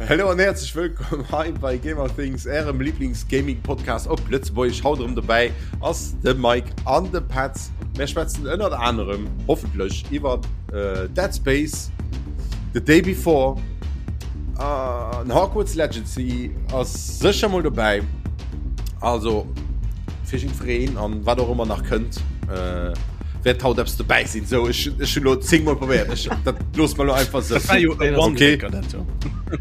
Hallo an herzlich wëllkomm hei bei Gamer Things, ärem Lieblings-Gaming-Podcast op Lëtzebuergesch. Haut erëm dobäi ass de Mike an de Petz. Mir schwätzen ënnert anerem hoffentlech iwwer äh, Dead Space, The Day Before, an äh, Hogwarts Legacy ass sécher mol dobäi. Also fir jiddwereen an wat och ëmmer nach kënnt. Äh, wäert haut eppes dobäi sinn. So, ech, ech hunn lo 10 Mol probéiert. Ech, dat looss mer lo einfach sou. Dat war jo e Okay. One-Taker, dat do.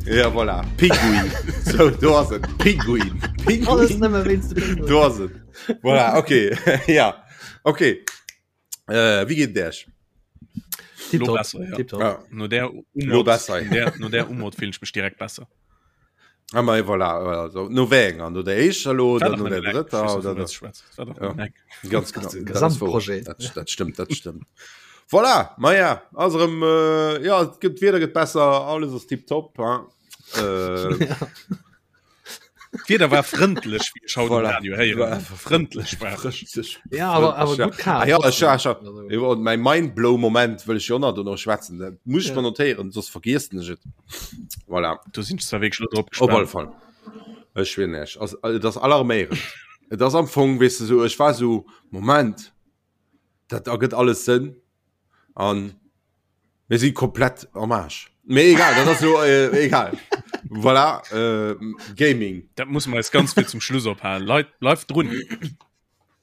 Ja, voilà. Pinguin. So, do ass et. Pinguin. Alles Pinguin. nëmme wéinst dem Pinguin. Do ass et. Voilà, okay. ja. Okay. Äh, wéi geet et Iech? Lo Tipptopp, besser, ja. tipptopp. Ja. No der Lo Umod, besser, ja. der, no der Umod fillen ech mech direkt besser. Ah, ma voilà, also, no wéi enger? No der éischter lo War oder doch no nëmmen der eng. drëtter Ech weess oder net, der wovun du schwätz. War doch Ja. nëmmen eng. Ganz genau. Das ist ein Dat ass wouer. Gesamtprojet. Dat, dat stimmt, dat stimmt. Voilà, ma ja, ass erëm, äh, ja, et gëtt, d'Wieder gëtt besser, alles ass tipptopp, hein. Äh, Ja. D'Wieder war frëndlech, wéi ech haut um Voilà. Radio héieren hunn. Frëndlech war et. Frëndlech. Ja, awer, awer Frëndlech, ja. gutt kal. Ah, ja, ech, trotzdem. ech, Also, Iwwer mäi Mindblow-Moment wëll ech jo nach dono schwätzen. Dat muss ech Ja. mer notéieren, soss vergiessen ech et. Voilà. Do sinn ech zwar wierklech lo drop Op alle gespaant. Fall. Ech schwieren iech, ass, et ass alarméierend. Et ass am Fong, weess de, sou, ech war sou, Moment, dat ergëtt alles Sënn. An mir si komplett am Aarsch. Mee egal, dat ass so, äh, egal. Voilà, äh, Gaming. Dat muss mer eis ganz vill zum Schluss ophalen. Leit, bleift drun.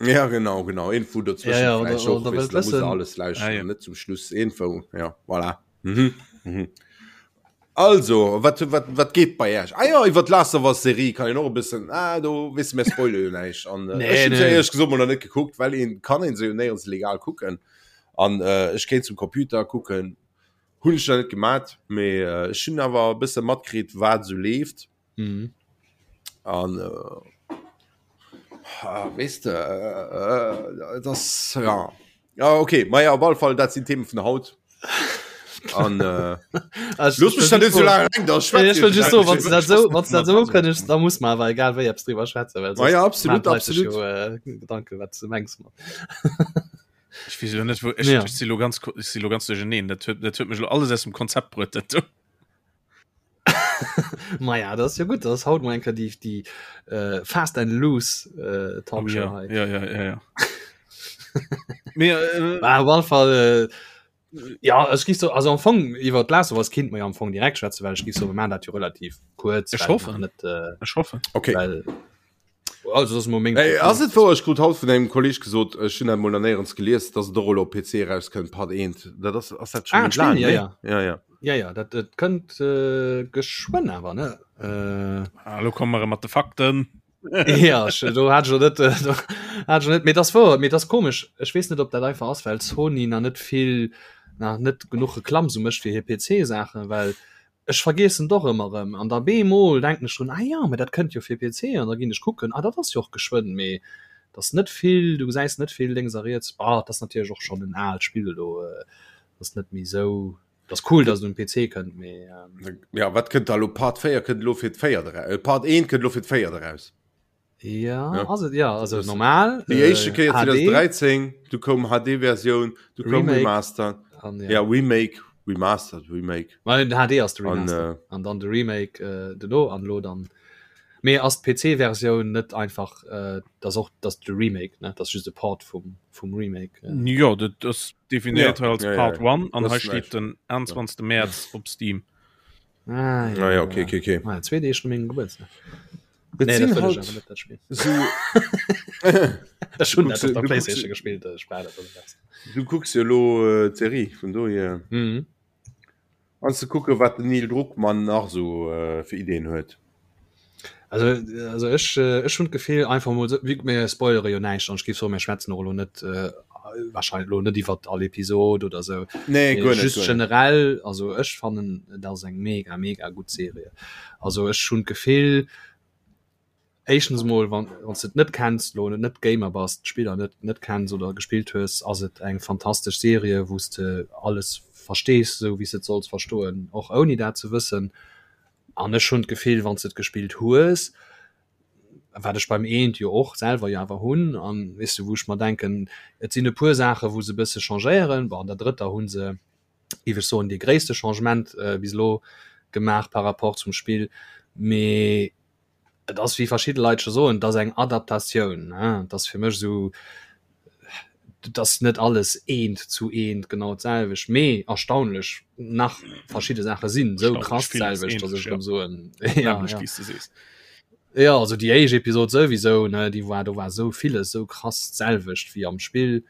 Ja, genau, genau. Info dazwischen Ja, ja, oder- vielleicht och, oder weißt wëllt du, da muss wëssen. alles lauschteren, Ah, ja. net zum Schluss Info. Ja, voilà. Mhm. Mhm. Also, wat, wat, wat geet bei Iech? Ah ja, iwwer d'Last of Us Serie kann een och e bëssen, ah, do wisse mir spoile jo näischt. An äh, Nee, ech hunn se nee. éierlech gesot mol nach net gekuckt, well een kann een se jo néierens legal kucken. An äh, ech kéint zum Computer kucken, hunn ech nach net gemat, mee äh, ech hunn awer e bësse matkritt, wat esou leeft. Mhm. An äh, ah, weess de, äh, äh, das ja. Ja, okay, ma ja, op alle Fall, dat sinn Themen vun haut. An äh, Also, looss mech da net so laang eleng, da schwätz Ech wëll just so, wann du dat so, wann du dat so Also, ukënnegs, da muss man awer egal wéi eppes driwwer schwätzen, well Ma ja, sonst absolut, maan d'Leit sech absolut. jo, äh, Gedanken, wat du mengs mat. Ech weess jo net, wou ech, Ja. ech si lo ganz, ko- ech si lo ganz duercherneen. Dat huet, dat huet mech lo alles aus dem Konzept bruet, dat do. Ma ja, dat ass jo gutt, dat ass haut mol eng Kéier déi, déi äh, Fast and Loose äh, Oh, Talkshow ja, hei. ja, ja, ja, ja. Mee, äh, Bah, op alle Fall, äh, ja, ech géif so, also am Fong iwwer d'Last of Us kinnt mer jo am Fong direkt schwätzen, well ech géif soen, mir maachen dat jo relativ kuerz, Ech well hoffen. nach net, äh, ech hoffen. Okay. well also dat ass mol meng Ey, ass et wouer, ech krut haut vun engem Kolleg gesot, ech hunn dat mol nach néierens gelies, dass et och elo op PC erauskënnt, Part 1. Dat ass, ass dat schon Ah, méi laang, d'Spill, ja, ne? ja. Ja, ja. Ja, ja, dat, dat kënnt äh, geschwënn awer, ne? Äh, Ah, lo komme mer erëm mat de Fakten. ja, ech, do hat ech jo net, äh, do hat ech jo net, mee dat ass wouer, mee dat ass komesch. Ech weess net, ob dat einfach ass, well Sony nach net vill, nach net genuch Reklamm sou mécht fir hir PC-Saachen, well Ech vergeessen et och ëmmer erëm an da beemol denken ech drun, ah jo, mä dat kënnt jo fir PC an da ginn ech kucken, ah dat ass jo och geschwënn, mee et ass net vill, du gesäis net vill lénks a riets. Bah, et ass natierlech och schonn en aalt Spill elo, et ass net méi esou, et ass cool, datt et um PC kënnt, mee. Jo, wat kënnt da elo? Part 4 kënnt elo fir d'véiert eraus, Part 1 kënnt elo fir d'véiert eraus. Ja, ja. Also, ja, also normal déi éischte Kéier 2013 du koum HD-Versioun du koum Remaster an, ja. ja Remake Remastered Remake well, den HD ass de Remaster an, äh, an dann de Remake äh, duerno an lo dann mee ass d'PC-Versioun net einfach äh, das och das de Remake ne das just de Part vum vum Remake äh. Ja dat ass definiert ja, als ja, Part 1 ja, ja. an hei steet den 21. Ja. März op Steam. Ah, ja, ah, ja, okay, okay, okay. Ah, ja, zwee Deeg no mengem Gebuertsdag. Nee, dat sinn wëll ech halt awer net, dat Spill. so Ech hunn Kucks dat op du der kucks Playstation gespillt, ech brauch dat net besser. du kucks jo elo äh, d'Serie vun dohier Mhm. an ze kucke wat den Neil Druckmann nach sou äh, fir Ideen huet. Also, also ech, äh, ech hunn d'Gefill einfach mol sou, wéi mir spoilere jo näischt an ech géif soen, mir schwätzen och elo net äh, wahrscheinlech elo net iwwert all Episod oder sou. Nee, Mee guer net, just guer net. generell, also ech fannen et ass eng mega mega gutt Serie. Also ech hunn d'Gefill, éischtens emol wann wann s de et net kenns, elo net Gamer bass, d'Spiller net net kenns oder gespillt hues, ass et eng fantastesch Serie wou s de alles verstees, esou wéi s de et solls verstoen, och ouni dat ze wëssen. An ech hunn d'Gefill, wann s de et gespillt hues, wat ech beim eent jo och selwer jo awer hunn, an weess de wou ech mer denken, et sinn e puer Saache wou se e bësse changéieren, bon an der drëtter hu se, géif ech soen, dee gréisste Changement bis elo. gemaach par rapport zum Spill, mee et ass wéi verschidde Leit scho soen, et ass eng Adaptatioun, ne, et ass fir mech esou, et ass net alles eent zu eent genau d'selwecht, mee erstaunlech nach verschidde Saache sinn esou krass d'selwecht, datt ech erëm soen, ja, ja. Jo, also déi éischt Episod souwisou, ne, déi war, do war esou villes esou krass d'selwecht wéi am Spill.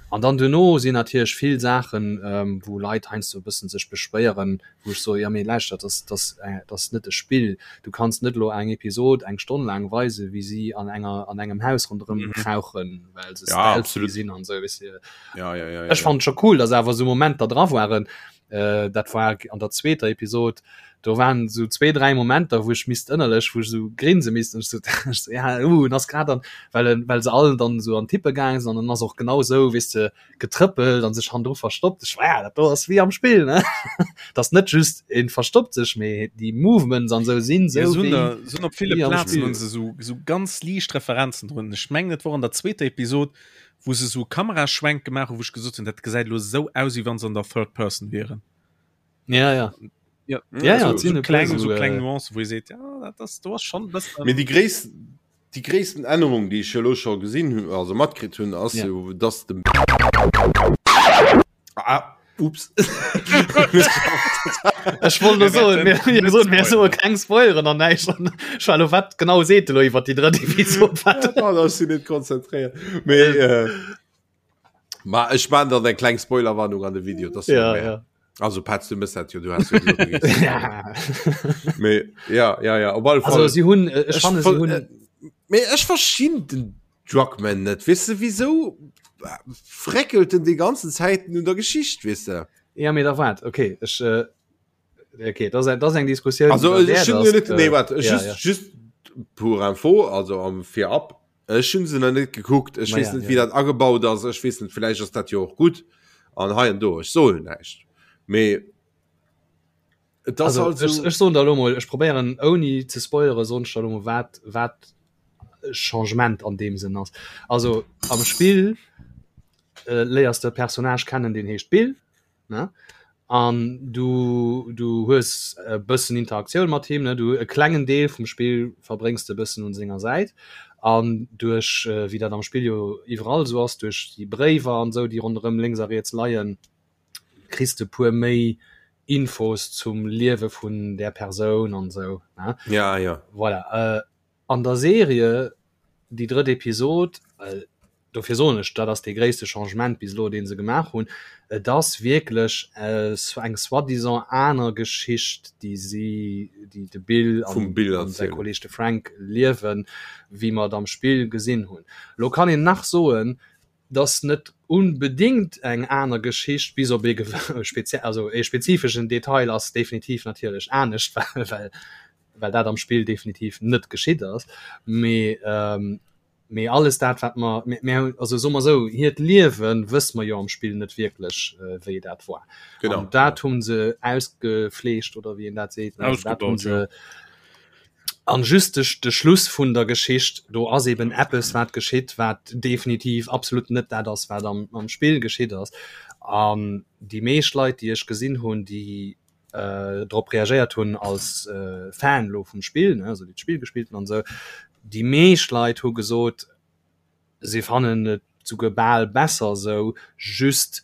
An dann duerno sinn natierlech vill Saachen, ähm, wou Leit heiansdo e bëssen sech beschwéieren, wou ech soe, jo mee lauschtert, dat ass, dat ass, dat ass net e Spill. Du kanns net elo eng Episod eng Stonn laang weisen, wéi si an enger, an engem Haus ronderëm krauchen, well se Ja, stealthy absolut. sinn an esou, weess de. Ja, ja, ja, ja, Ech ja. fannen et scho cool, dass awer esou Momenter dra waren, äh, dat war an der zweeter Episod, do waren esou zwee, dräi Momenter, wou ech misst ënnerlech, wou ech esou grinse misst, ech so, ech so, ja, uh, en ass grad an, well en, well se all dann esou an d'Hippe gaange sinn an en ass och genau esou, weess de, getrëppelt an sech hannendru verstoppt. Ech war, ja, dat do ass wéi am Spill, ne? Dat ass net just en verstoppt sech, mee déi Movements an esou sinn Ja, esou se hunn wéi, der, se hunn op ville wéi am Plazen Spill. hunn se esou, esou ganz liicht Referenzen drun. Ech mengen, et wor an der zweeter Episod, wou se esou Kameraschwenk gemaach hunn, wou ech gesot hunn, dat gesäit elo esou aus, wéi wann se an der Third Person wieren. Ja, ja. Ja, ja, ja, so, so kleng, so äh, kleng Nuancen, wou ee seet, ja, dat ass, do ass schonn e bëssen. Mee déi gréissten, déi gréissten Ännerung, déi ech elo scho gesinn hunn, also matkritt hunn, ass Ja. jo, dass de Ah, ups. Ech wollt nur soen, mir, mir soen, mir soe keng Spoileren an näischt. An ech war lo, wat genau seet de lo iwwer déi drëtt Episod? Wat? Ja, da sinn net konzentréiert. Mee, äh, ma ech man dann eng kleng Spoilerwarnung an de Video. Das Ja, ja. Also Petz, du mëss dat jo, du hast jo gesot, du gees. Ja. Mee, ja, ja, ja, op alle Also Fall. si hunn, äh, ech fanne si ver- hunn, äh, Mee ech verstinn den Druckmann net weess de wisou fréckelt en déi ganzen Zäiten un der Geschicht weess de. Ja mee da waart okay ech äh, okay dat ass eng Diskussioun Also déi ech derwäert hunn ass, net nee äh, waart ja, just ja. just pour info also am virab ech hunn se nach net gekuckt ech Ma weess ja, net ja. wéi dat agebaut ass ech weess net villäicht ass dat jo och gutt an hei an do ech soen näischt mee Et ass Also, halt ech, so. ech soen der elo mol, ech probéieren ouni ze spoilere soen ech der elo mol wat wat Changement an deem Sënn ass. Also am Spill äh, léiers de e Personnage kennen, deen heescht Bill, ne? An du du hues e bëssen Interaktioun mat him, ne? Du e klengen Deel vum Spill verbréngs de e bëssen un senger Säit an duerch äh, wéi dat am Spill jo iwwerall esou ass, duerch déi Bréiwer an esou, déi ronderëm lénks a riets leien, kriss de puer méi Infos zum Liewe vun där Persoun an esou ne Ja ja. voilà äh, an der Serie déi drëtt Episod äh, dofir soen ech dat ass dee gréisste Changement bis elo dee se gemaach hunn et ass wierklech äh, eng soi-disant aner Geschicht déi si déi de Bill an, Vum Bill an säi erzielen. Kolleeg de Frank liewen wéi mer et am Spill gesinn hunn. Lo kann een nach soen 't ass net unbedingt eng aner Geschicht, bis op ee spezie also ee spezifeschen Detail ass definitiv natierlech anescht, well well well dat am Spill definitiv net geschitt ass. Mee mee alles dat wat mer mir mir hunn also soe mer esou, hiert Liewe wësse mer jo am Spill net wierklech wéi dat war. Genau, An dat hu se ausgefleescht oder wéi een dat seet, also dat hu Ausgebaut, jo. se An just de, de Schluss vun der Geschicht, do ass eben eppes wat geschitt, wat definitiv absolut net dat ass, wat am, am Spill geschitt ass. An déi meescht Leit, déi ech gesinn hunn, déi äh, drop reagéiert hunn als äh, Fan lo vum Spill, ne, also déi d'Spill gespillt hunn an esou, déi meescht Leit hu gesot, Si fannen et souguer bal besser esou, just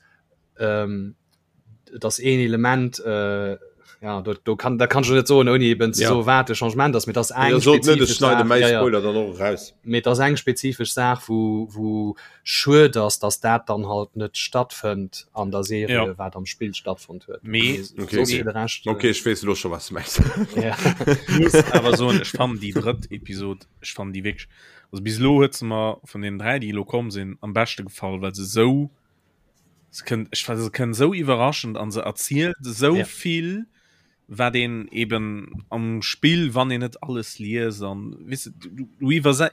et ass een Element, jo do do kann dat kann ech net soen ouni eben ze soen wat de Changement ass, mee et ass eng spezifesch Saach, ja ja, mee et ass eng spezifesch Saach wou wou schued ass, datt dat dann halt net stattfënnt an der Serie wat am Spill stattfonnt huet, mee soss fir de Rescht. Ok ech weess elo scho wat s de mengs. Ech muss awer soen ech fannen déi drëtt Episod, ech fannen déi wierklech Also bis elo huet se mer vun den 3 déi elo komm sinn am beschte gefall, well se sou se kënnt ech se kënnt sou iwwerraschend an se erzielt sou Ja. vill wat een eben am Spill wann een net alles liest an weess de du du iwwerse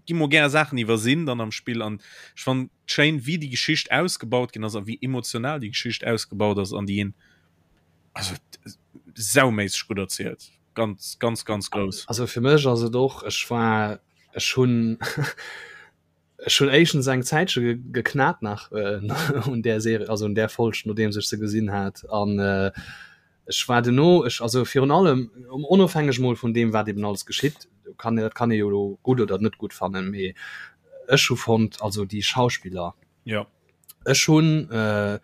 gi mol gär Saachen iwwersinn dann am Spill an ech fannen schéin wéi déi Geschicht ausgebaut ginn ass a wéi emotional déi Geschicht ausgebaut ass an déi een also sauméisseg gutt erzielt. Ganz ganz ganz grouss. Also fir mech ass et och, ech war ech hunn ech hunn éischtens eng Zäitche geknat nach un där Serie, also un där Folg nodeems ech se gesinn hat an. Ech war duerno, ech, also virun allem, onofhängeg mol vun deem wat eben alles geschitt, do kann, dat kann ee jo elo gutt oder net gutt fannen, mee ech hu fonnt, also déi Schauspiller, ja. ech hunn, äh,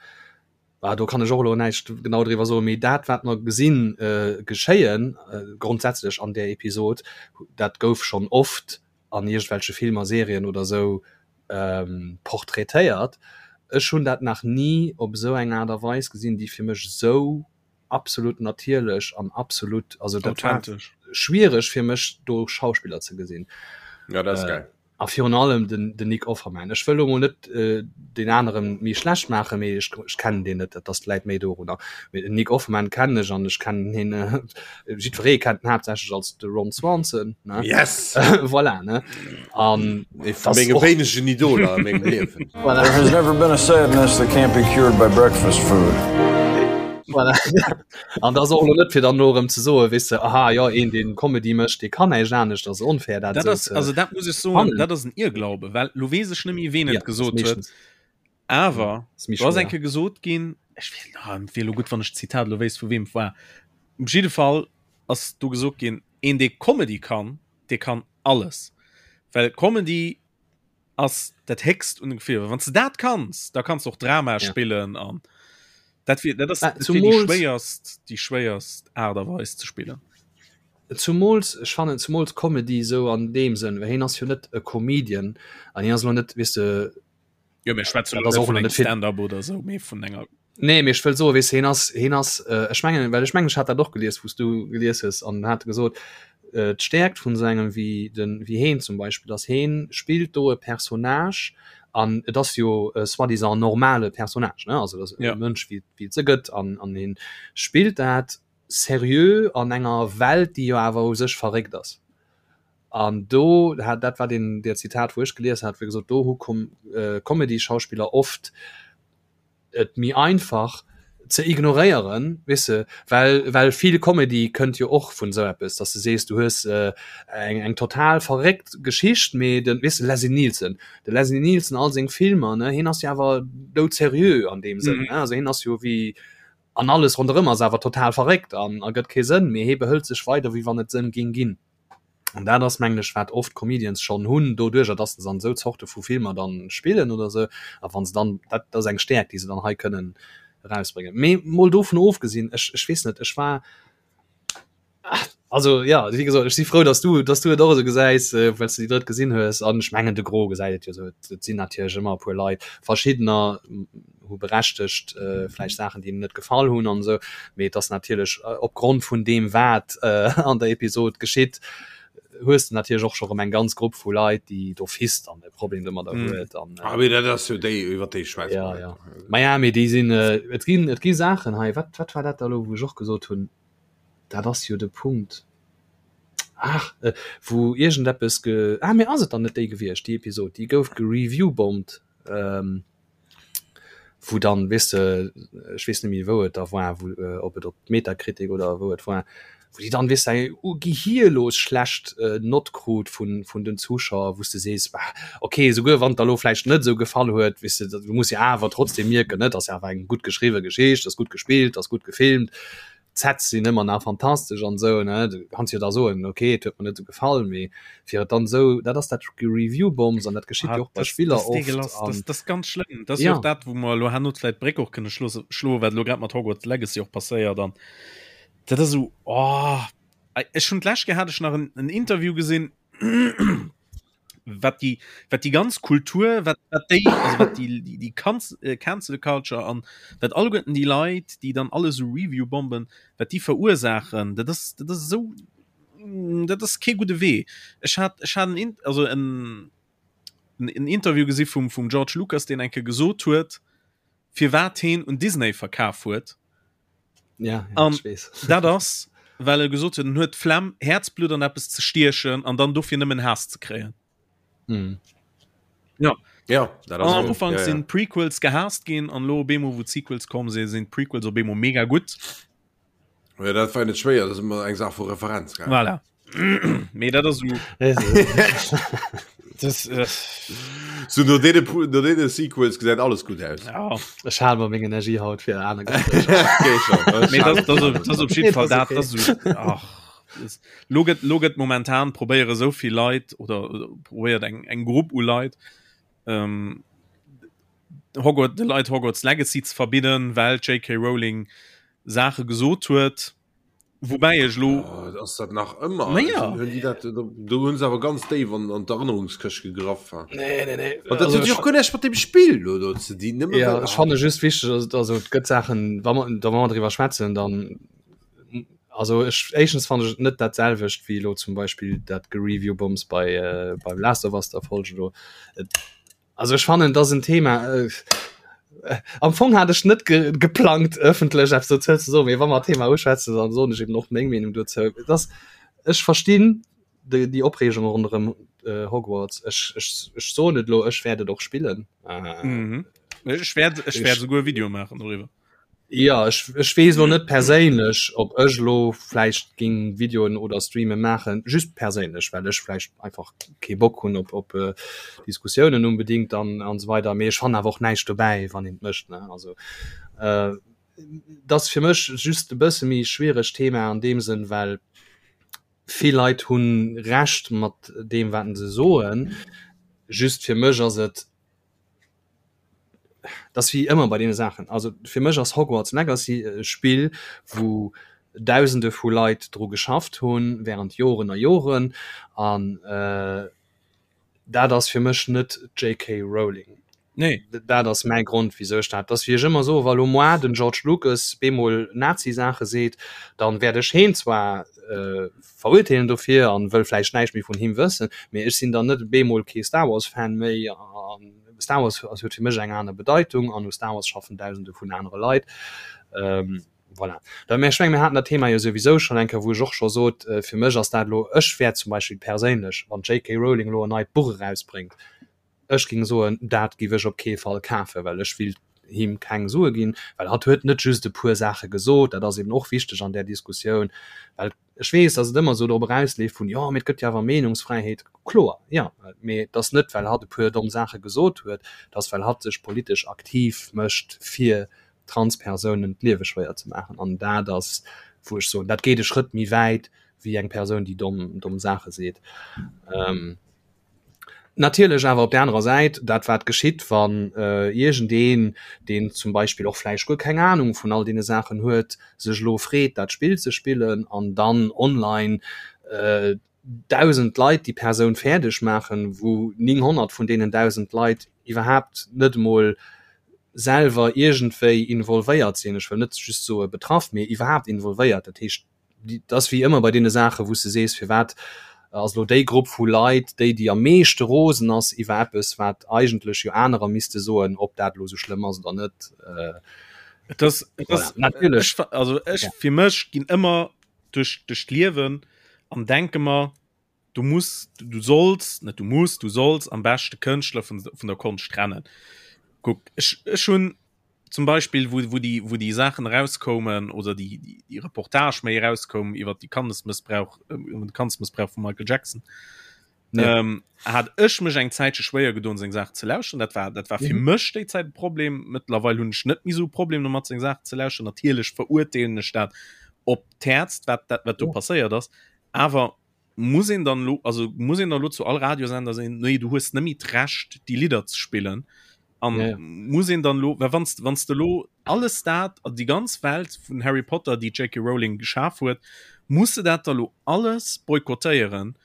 ah, do kann ech och elo näischt genau driwwer soen, mee dat wat mer gesinn äh, geschéien äh, grondsätzlech an där Episod, dat gouf schonn oft an iergendwelche Filmer, Serien oder sou ähm, portraitéiert. Ech hunn dat nach ni op esou eng Aart a Weis gesinn, déi fir mech esou absolut natierlech an absolut, also dat war schwiereg fir mech do Schauspiller ze gesinn. Ja, dat ass geil. A virun allem den, den Nick Offerman. Ech wëll lo mol net äh, deen aneren méi schlecht maachen, mee ech, ech kennen deen net, dat ass läit méi dorunner. Mee den Nick Offerman kennen ech an ech kennen hien, äh, jiddweree kennt en haaptsächlech als de Ron Swanson, ne? Yes! Voilà, ne? An Ee vu menge wéinegen Idoler a mengem Liewen. Voilà. There has never been a sadness that can't be cured by breakfast food. Voilà. An dat ass och elo net fir dann elo erëm ze soen, weess de, aha jo, een deen Comedy mécht, dee kann näischt anescht, ass onfair dat Dat esou ass, ze also dat muss ech soen, fannen. dat ass en Irrglaube, well lo weess ech net méi ween Ja, et ass gesot huet, meeschtens awer ass méi do ass eng schwéier. Kéier gesot ginn, ech weess, ah, et wier elo gutt wann ech d'Zitat elo wéisst vu weem et war, op jidde Fall ass do gesot ginn, een dee Comedy kann, dee kann alles, well Comedy ass dat héchst un de Gefiller. Wann s de dat kanns, da kanns de och Drama Ja. spillen an dat wier dat ass Mä dat wier déi zumools schwéierst déi schwéierst Aart a Weis ze spillen. Zumools, ech fannen zumools Comedy esou an deem Sënn, well hien ass jo net e Comedian an hien ass elo net, weess de, Jo, mir schwätzen dat elo ass net och vun elo engem net fir Stand-up oder esou, mee vun enger Nee, mee ech wëll soen, weess de, hien ass, hien ass, ech mengen, well ech mengen, ech hat dat och gelies, wou s du gelies hues, an en hat gesot, d'Stäerkt vun esou engem wéi de, wéi heen zum Beispill, ass, heen spillt do e Personnage an et ass jo e soi-disant normale Personnage, ne, also et ass e Ja. Mënsch, wéi, wéi et se gëtt, an, an heen spillt dat seriö an enger Welt, déi jo awer u sech verréckt ass. An do hat, dat war deen, dat Zitat, wou ech gelies hat, wou e gesot, do hu Com, Comedy-Schauspiller oft, et méi einfach ze ignoréieren, weess de, well well vill Comedy kënnt jo och vun esou eppes, dass de sees, du hues eng eng total verréckt Geschicht, mee de, weess de, Leslie Nielsen, de Leslie Nielsen, all seng Filmer, ne, hien ass jo awer doudserieux an deem Sënn, ne, also hien ass jo wéi, an alles ronderëm ass awer total verréckt an ergëtt kee Sënn, mee hie behëlt sech weider, wéi wann et Sënn géing ginn. An dat ass, mengen ech, wat oft Comedians schonn hunn, doduerjer, dass se an esou Zorte vu Filmer dann spillen oder esou. A wa se dann, dat ass eng Stäerkt, déi se dann hei kënnen erausbréngen. Mee mol dovun ofgesinn, ech, ech weess net, ech war, also jo, wéi gesot, ech si frou, dass du, dass du et och esou gesäis, well s de déi drëtt gesinn hues. An ech mengen, de Gros gesäit et jo esou. Et sinn natierlech ëmmer e puer Leit, verschiddener hu berechtegt vläicht Saachen, déi hinnen net gefall hunn an esou, mee et ass natierlech opgrond vun deem wat an der Episod geschitt, hues de natierlech och scho rëm eng ganz Grupp vu Leit, déi d'office dann e Problem domadder huet an Ah, mee dat ass jo déi, iwwer déi schwätze ja, mer ja. net. Ma ja, mee déi sinn, et ginn, et gi Saachen hei, wat, wat war dat da elo, wou ech och gesot hunn, dat ass jo de Punkt, ach, wou iergendeppes ge, ah, mee ass et dann net déi gewiescht, déi Episod, déi gouf gereview-bombt, wou dann, weess de, ech weess net méi wou et da war, wou, ob et op Metacritic oder wou et war, wou déi dann, weess de, eng gehirlos schlecht Nott krut vun, vun den Zuschauer, wou s de sees, bah, okay, souguer wann et der elo vläicht net esou gefall huet, weess de, du muss jo awer trotzdem mierken, ne, et ass jo awer eng gutt geschriwwe Geschicht, ass gutt gespillt, ass gutt gefilmt, D'Sets sinn ëmmer nach fantastesch an esou, ne? Du kanns jo da soen, ok, et huet mer net esou gefall, mee fir et dann esou, dat ass dat Review-Bombs an dat geschitt jo och bei Ah, das, Spiller das oft degelas, an das, das ganz schlëmm. Das ja. ja. och dat, wou mer elo herno vläit d'Bréck och kënne schlosse, schloen, wat elo grad mat Hogwarts Legacy och passéiert an dat ass esou, oh, ech hunn d'lescht Kéier hat ech nach en, en Interview gesinn, wat déi wat déi ganz Kultur wat wat déi also wat déi déi déi Kanz äh, Cancel Culture an wat alleguerten déi Leit déi dann alle sou Review bomben wat déi verursaachen dat ass dat ass esou mm, dat ass kee gudde Wee ech hat ech hat en In also en en Interview gesi vum vum George Lucas deen eng Kéier gesot huet firwat heen un Disney verkaf huet Ja, ja, An ech weess. dat ass, well e gesot huet, en huet d'Flemm, Häerzblutt an eppes ze stiechen an dann dofir nëmmen Haass ze kréien. Mhm. Ja. Ja, dat An ass am esou. Ufank Ja, ja. sinn d'Prequels gehaasst ginn an elo op eemol, wou d'Sequels komm sinn, sinn d'Prequels op eemol mega gutt. Ja, dat war net schwéier, dat ass ëmmer eng Saach vu Referenz, gell? Voilà. Mee dat ass esou. Das, äh. So no deene no deene Sequels gesäit alles gutt aus. Ja. Ech hale mer meng Energie haut fir aner Gespréicher. Mee dat dat ass op jidde Fall dat dat ass ach lo gëtt lo gëtt momentan probéiere sou vill Leit oder probéiert eng eng Grupp u Leit ähm, Hogwarts de Leit Hogwarts Legacy ze verbidden, well d'JK Rowling Saache gesot huet. Woubäi ech lo. Oh, ass dat nach ëmmer? Naja. Hunn déi dat, do hunn se awer ganz déif an, an d'Erënnerungskëscht gegraff. Ha. Nee, nee, nee. An dat Also huet jo ech och guer näischt mat dem Spill lo do ze dinn. Nëmme Ja, well, ech fanne just wichteg, also, also et gëtt Saachen, wa mer, da wa mer driwwer schwätzen, dann also ech éischtens fannen ech et net dat selwecht wéi elo zum Beispill dat Gereview-Bombs bei äh, beim Last of Us der Folge do. Et, Also ech fannen dat ass en Thema äh, am Fong hat ech net ge geplangt ëffentlech eppes dozou ze soen, mee wa mer d'Thema uschwätzen, dann soen ech eben och meng Meenung dozou. Et ass ech verstinn déi déi Opreegung ronderëm äh, Hogwarts. Ech ech ech soen et elo, ech wäert et och spillen. Äh, mhm. Ech wäert ech wäert souguer e Video maachen doriwwer. Jo, ech, ech weess elo net perséinlech, ob ech elo vläicht géing Videoen oder Streame maachen, just perséinlech, well ech vläicht einfach kee Bock hunn op, op Diskussiounen unbedingt an, an esou weider. Mee ech fannen awer och näischt dobäi, wann een et mécht, ne. Also, et ass fir mech just e bësse méi schwieregt Thema an deem Sënn, well vill Leit hu Recht mat deem, wat se soen, just fir mech ass et, Dat ass wéi ëmmer bei deene Saachen. Also fir mech ass Hogwarts Legacy e Spill, wou Dausende vu Leit dru geschafft hunn, während Joren a Joren. An dat ass fir mech net d'JK Rowling. Nee. Dat ass mäi Grond, wisou ech dat. Dat ass wéi ech ëmmer soen, wa lo moar den George Lucas bemol Nazi-Saache seet, dann wäert ech heen zwar verurteelen dofir an wëll vläicht näischt méi vun him wëssen, mee ech sinn dann net bemol kee Star Wars-Fan méi an Star Wars ass huet fir mech eng aner Bedeitung an u Star Wars schaffen dausende vun anere Leit. Ähm, voilà. Da, mä ech menge mir haten dat Thema jo souwisou schonn eng Kéier, wou ech och scho sot, äh, fir mech ass dat elo, ech wäert zum Beispill perséinlech, wann d'JK Rowling elo en neit Buch erausbréngt, ech géing soen, dat géif ech op kee Fall kafen, well ech willt him keng Sue ginn, well hatt huet net just e puer Saache gesot, dat ass eben och wichteg an där Diskussioun, well Ech weess, datt et ëmmer esou drop erausleeft vun, jo, mee et gëtt jo awer Meenungsfräiheet. Kloer, jo, mee et ass net, well hatt e puer domm Saache gesot huet, et ass, well hatt sech politesch aktiv mécht, fir Transpersounen d'Liewe schwéier ze maachen. An dat ass, wou ech soen, dat geet e Schrëtt méi wäit wéi eng Persoun, déi domm, domm Saache seet. Natierlech awer op där anerer Säit, dat wat geschitt, wann iergendeen, deen zum Beispill och vläicht guer keng Anung vun all deene Saachen huet, sech elo freet dat Spill ze spillen an dann online 1.000 Leit déi Persoun fäerdeg maachen, wou 900 vun deenen 1.000 Leit iwwerhaapt net emol selwer iergendwéi involvéiert sinn, ech wëll net just soe betraff, mee iwwerhaapt involvéiert, dat heescht, Et ass wéi ëmmer bei deene Saachen, wou s de sees, firwat ass elo déi Grupp vu Leit déi, déi am meeschte rosen ass iwwer eppes, wat eigentlech jo anerer misste soen, ob dat elo esou schlëmm ass oder net. Et ass, et ass, Voilà. Natierlech. Ech, also ech, Ja. fir mech ginn ëmmer duerch, duerch d'Liewen an denke mer, du muss, du solls, net du muss, du solls am beschte Kënschtler vun, vun der Konscht trennen. Kuck, ech, ech hunn zum Beispill wou, wou déi, wou déi Saachen erauskoumen oder déi, déi, déi Reportage méi erauskoum iwwer déi Kandesmëssbrauch, äh, iwwer de Kandesmëssbrauch vum Michael Jackson. Ja. Ähm, hat ech mech eng Zäitche schwéier gedoen seng Saachen ze lauschteren. Dat war, dat war fir Mhm. mech déi Zäit e Problem. Mëttlerweil hunn ech net méi sou e Problem domat seng Saachen ze lauschteren. Natierlech verurteelen ech dat op d'Häerzt, wat, dat, wat do Ja. passéiert ass. Awer muss een dann lo, also muss een dann lo zu all Radiosender sinn, nee, du hues net méi d'Recht déi Lidder ze spillen. An ja, ja. muss een dann lo, well wanns, wanns de lo alles dat, déi ganz Welt vun Harry Potter, déi J.K. Rowling geschaf huet, muss de dat da lo alles boykottéieren,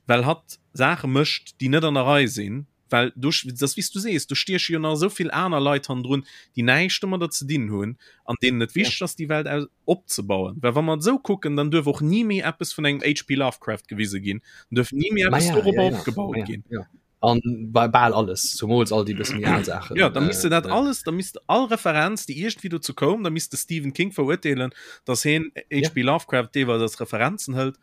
well hatt Saache mécht, déi net an der Rei sinn, well do, dat ass wéi s du sees, do stieche jo nach esou vill aner Leit hannendrun, déi näischt domadder ze dinn hunn an deenen et wichteg ass, déi Welt aus opzebauen. Well wa mer et esou kucken, dann duerf och ni méi eppes vun engem HP. Lovecraft gewise ginn, dann duerf ni méi eppes ja, dorobber ja, ja, opgebaut ja, ginn. Ja. An bei bal alles, zumools all déi bësse méi al Saachen. Ja, da misst de dat Äh, alles, da misst all Referenz, déi iergendwéi dozou koum, da misst de Stephen King verurteelen, datt hien HP. Lovecraft deelweis als Referenzen hëlt.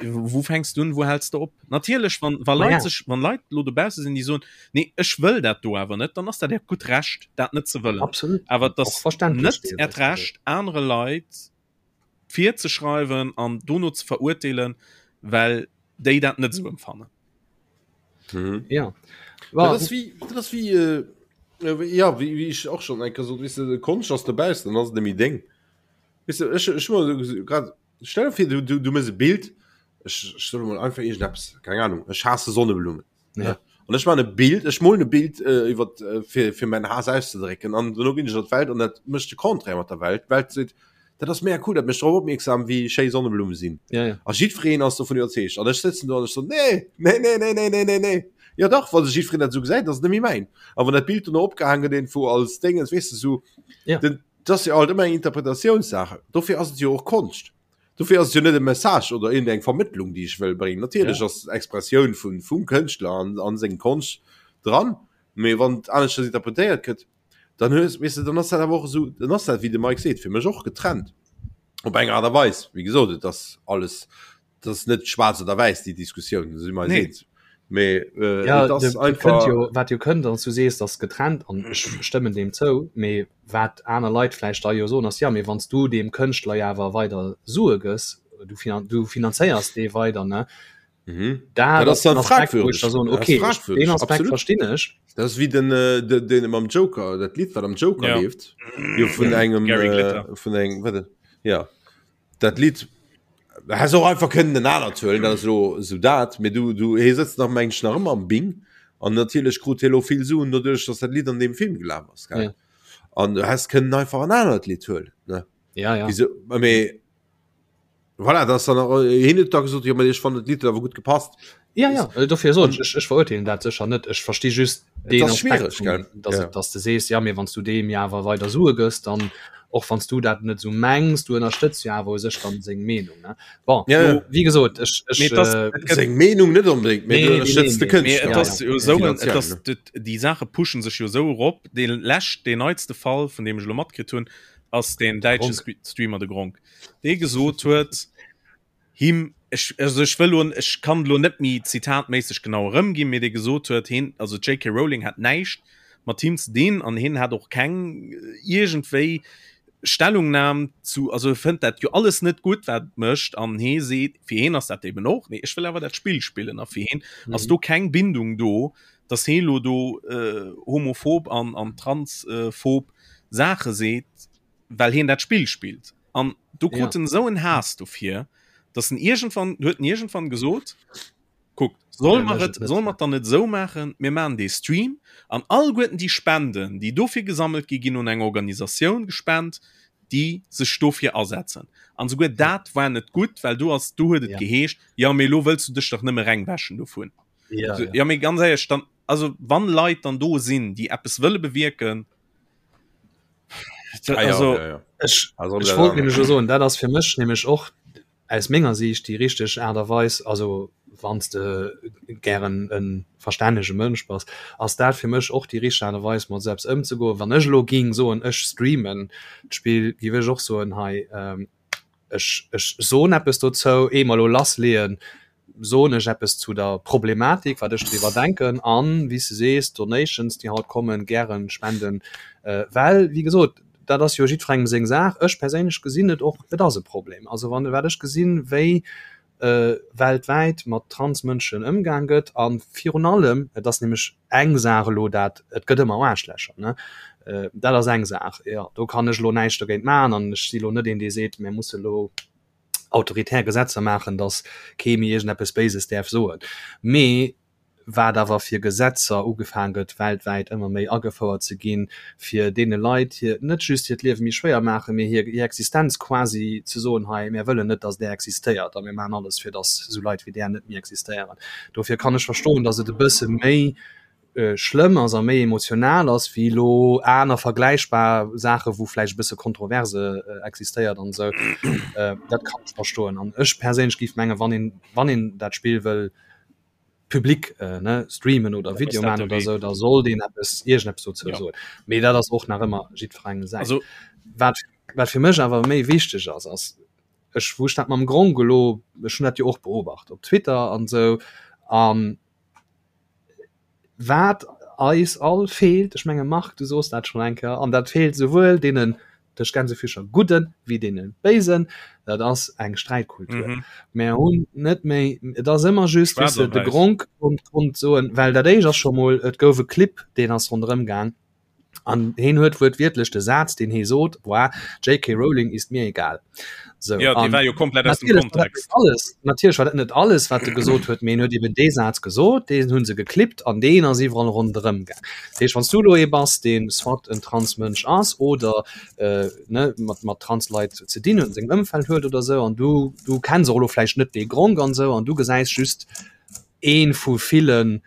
Wou fänks du un, wou häls de op? Natierlech, wann, wa Leit ja. sech, wann Leit lo dobausse sinn, déi soen, nee, ech wëll dat do awer net, dann ass dat äert gutt Recht, dat net ze wëllen. Absolut. Awer et Och ass verständlech net äert deelweis. Recht, anere Leit virzeschreiwen an dono ze verurteelen, well déi dat net esou empfannen. Mhm. Ja. War, dat ass wéi, dat ass wéi, äh, äh, ja, wéi, wéi ech och schon eng Kéier sot, weess de, Konscht ass dobaussen, dann ass et net méi deng. Weess de, ech, ech hu mer grad, stell dir vir, du, du, du mëss e Bild, ech, ech soe mol einfach iergendeppes, keng Ahnung, ech haasse Sonneblummen. Ja. An ech maachen e Bild, ech molen e Bild äh, iwwer, äh, fir, fir mäin Haass auszedrécken an duerno ginn ech an d'Welt an dat mécht de Contraire mat der Welt. D'Welt seet, dat ass mega cool, dat mécht drop opmierksam, wéi schéi Sonneblumme sinn. Ja, ja. A jiddwereen ass dovun iwwerzeegt. An ech sëtzen do an ech so, nee, nee, nee, nee, nee, nee, nee, nee. Ja dach, wa sech jiddwereen dat esou gesäit, ass et net méi mäin. A wann dat Bild dono opgehaang gëtt iergendwou als Déngens, weess de, esou, Ja. den, dat ass jo alt ëmmer eng Interpretatiounssache. Dofir ass et jo och Konscht. Dofir ass et jo net e Message oder iergendeng Vermëttlung, déi ech wëll bréngen. Natierlech Ja. ass d'Expressioun vun, vum Kënschtler an, an seng Konscht dran, mee wann et aneschters interpretéiert gëtt, dann hues, weess de, dann ass dat awer och esou, dann ass dat, wéi de Mike seet, fir mech och getrennt op eng Aart a Weis. Wéi gesot, et ass alles, et ass net schwaarz oder wäiss, déi Diskussioun, si mer eis Nee. eens. Mee äh, Ja, et ass de, de kënnt einfach. jo, wat jo kënnt, an du sees, ass getrennt an ech stëmmen deem zou, mee wat aner Leit vläicht da jo soen, ass, ja, mee wann s du deem Kënschtler jo awer weider Sue gëss, du finan du finanzéiers dee weider, ne? Mhm. Dat Dat ass ass dann den Aspekt, wou ech fragwürdig. da soen, Dat ass okay, ech, fragwürdig, deen Aspekt absolut. verstinn ech. Dat ass wéi den, äh, den, den mam Joker, dat Lidd, wat am Joker Ja. leeft, jo vun engem, Gary äh, Glitter. vun engem, warte, ja, dat Lidd, da häss och einfach kënnen en anert huelen, dat ass elo esou dat, mee du, du, hie sëtzt nach, meng ech, nach ëmmer am Bing an natierlech krut hie elo vill Suen doduerch, dass dat Lidd an deem Film gelaf ass, gell? Ja. An du häss kënnen einfach en anert Lidd huelen, ne? Ja, ja. Wieso, mee Voilà, das dann auch, äh, hin huet da gesot, ja, ich fand dat Lied awer gut gepasst. Ja, ja, äh, dofir soen ech, ech verurteelen dat sécher net. Ech versti just Et ass schwiereg, gell? dass, Ja. dass du sees, ja, mee wann s du deem ja awer weider Sue gëss, dann och wann s du dat net esou mengs, du ënnerstëtz jo awer u sech dann seng Meenung, ne? Bon, Ja, ja. lo, wéi gesot, ech, ech, Mee et ass- äh, et gëtt- Seng Meenung net unbedingt, mee Nee, du nee, ënnerstëtz nee, de nee. Mee Kënschtler. et Ja, ass ja. jo esou, et Finanziell, ass, ne? d- déi Saache pushen sech jo esou erop. Dee lescht, deen neitste Fall, vun deem ech elo matkritt hunn, ass deen däitsche Gronkh. Streamer, de Gronkh. dee gesot huet, him, ech, also ech wëll lo, ech kann lo net méi zitatméisseg genau erëmginn, mee dee gesot huet, hien, also d'JK Rowling hat näischt mat him ze dinn an hien hat och keng iergendwéi Stellungnam zu, also e fënnt dat jo alles net gutt, wat et mécht an hie seet, fir hien ass dat eben och, nee ech wëll awer dat Spill spillen a fir hien ass do keng Bindung do, datt hie lo do homophob an an transphob Saache seet. well hien dat Spill spillt an do krut en esou en Haass dofir, dass en iergendwann huet en iergendwann gesot, kuckt, soll mer et soll mer et dann net esou maachen, mir maachen dee Stream an alleguerten déi Spenden, déi dofir gesammelt gi ginn un eng Organisatioun gespent, déi sech dofir asetzen. An esouguer dat war net gutt, well do ass do huet et geheescht, jo mee elo wëlls du dech dach nëmme rengwäschen dovun. Ja, ja. Jo mee ganz éierlech, dann also wann Leit dann do sinn, déi eppes wëlle bewierken, Ah, ja, also, ja, ja. Ech, Also, ech wollt nämlech jo soen, dat ass fir mech nämlech och aus menger Siicht déi richteg Aart a Weis, also wann s de gären e verstännege Mënsch bass, ass dat fir mech och déi richteg Aart a Weis mat esou eppes ëmzegoen. Wann ech elo géing soen, ech streamen d'Spill, géif ech och soen, hei, Ech, ech soen eppes dozou, ehe mer elo lassleeën, soen ech eppes zu der Problematik, wat ech driwwer denken an, wéi s de sees, Donations, déi haut kommen, gären spenden, well, wéi gesot, dat ass jo jiddwerengem seng Saach. Ech perséinlech gesinn et och, et ass e Problem. Also wann, wat ech gesinn, wéi weltwäit mat Transmënschen ëmgaang gëtt a virun allem, et ass nämlech eng Saach elo dat, et gëtt ëmmer Aarschlächer, ne, dat ass eng Saach, jo, do kann ech elo näischt dogéint maachen an ech si elo net een, dee seet, mir musse elo autoritär Gesetzer maachen, datt kee méi iergendeppes Béises däerf soen. Mee wat awer fir Gesetzer ugefaang gëtt weltwäit ëmmer méi agefouert ze ginn, fir deene Leit hir, net just hiert Liewe méi schwéier maachen, mee hir hir Existenz quasi ze soen, hei mär wëllen net, datt där existéiert a mir maachen alles fir datt esou Leit wéi där net méi existéieren. Dofir kann ech verstoen, datt et e bësse méi schlëmm ass a méi emotional ass wéi elo aner vergläichbar Saache wou vläicht e bësse Kontroverse existéiert an esou. Dat kann ech verstoen an ech perséinlech géif mengen, wann een wann een dat Spill wëll public ne streamen oder Video man oder sou, da sollt een eppes iergendeppes dozou Ja. soen. Mee dat ass och nach ëmmer jiddwerengem säin. Also Wat wat fir mech awer méi wichteg ass, ass ech wou ech dat mam Gronkh elo, ech hunn dat jo och beobacht op Twitter an esou an wat eis all feelt, ech menge Marc du soos dat schonn eng Kéier, an dat feelt souwuel deenen. Tëscht Gänsefüßcher gudden wéi deene béisen, dat ass eng Sträitkultur. Mm -hmm. Mär hunn net méi, et ass ëmmer just weess de, de Gronk konnt, konnt soen, well dat éischt ass scho mol, et gouf e Clip, deen ass ronderëm gaang an heen huet wuertwiertlech de Saz, deen hee sot, war JK Rowling ist mir egal. So, ja, dee war jo komplett aus dem Kontext. Alles, natierlech war dat net alles, wat e gesot huet, mee en huet eben dee Saz gesot, deen hu se geklippt an deen ass iwwerall ronderëm gaang. Dat heescht, wann s du elo ee bass, dee soit en Transmënsch ass oder äh, ne, mat, mat Transleit ze dinn huet, an sengem Ëmfeld huet oder sou, an du, du kenns och elo vläicht net dee Gronk an sou, an du gesäis just ee vu ville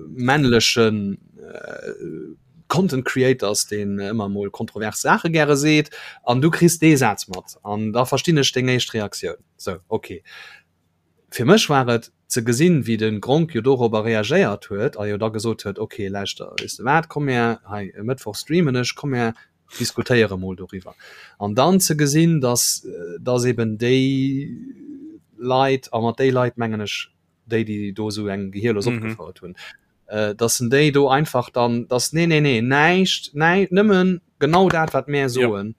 männlechen äh, Content Creators, deen ëmmer mol kontrovers Saache gäre seet, an du kriss dee Saz mat, an da verstinn ech deng éischt Reaktioun. Sou, okay. Fir mech war et ze gesinn, wéi de Gronk jo dorobber reagéiert huet a jo da gesot huet, ok, lauschter, weess de wat, komm mär hei e Mëttwoch streamen ech, komm mär diskutéiere mol doriwwer. An dann ze gesinn, datt, datt eben déi Leit, a mat déi Leit mengen ech déi, déi do esou eng Gehierlos opgefouert hunn, äh, dass en déi do einfach dann dass nee nee nee näischt nei nëmmen genau dat wat mär soen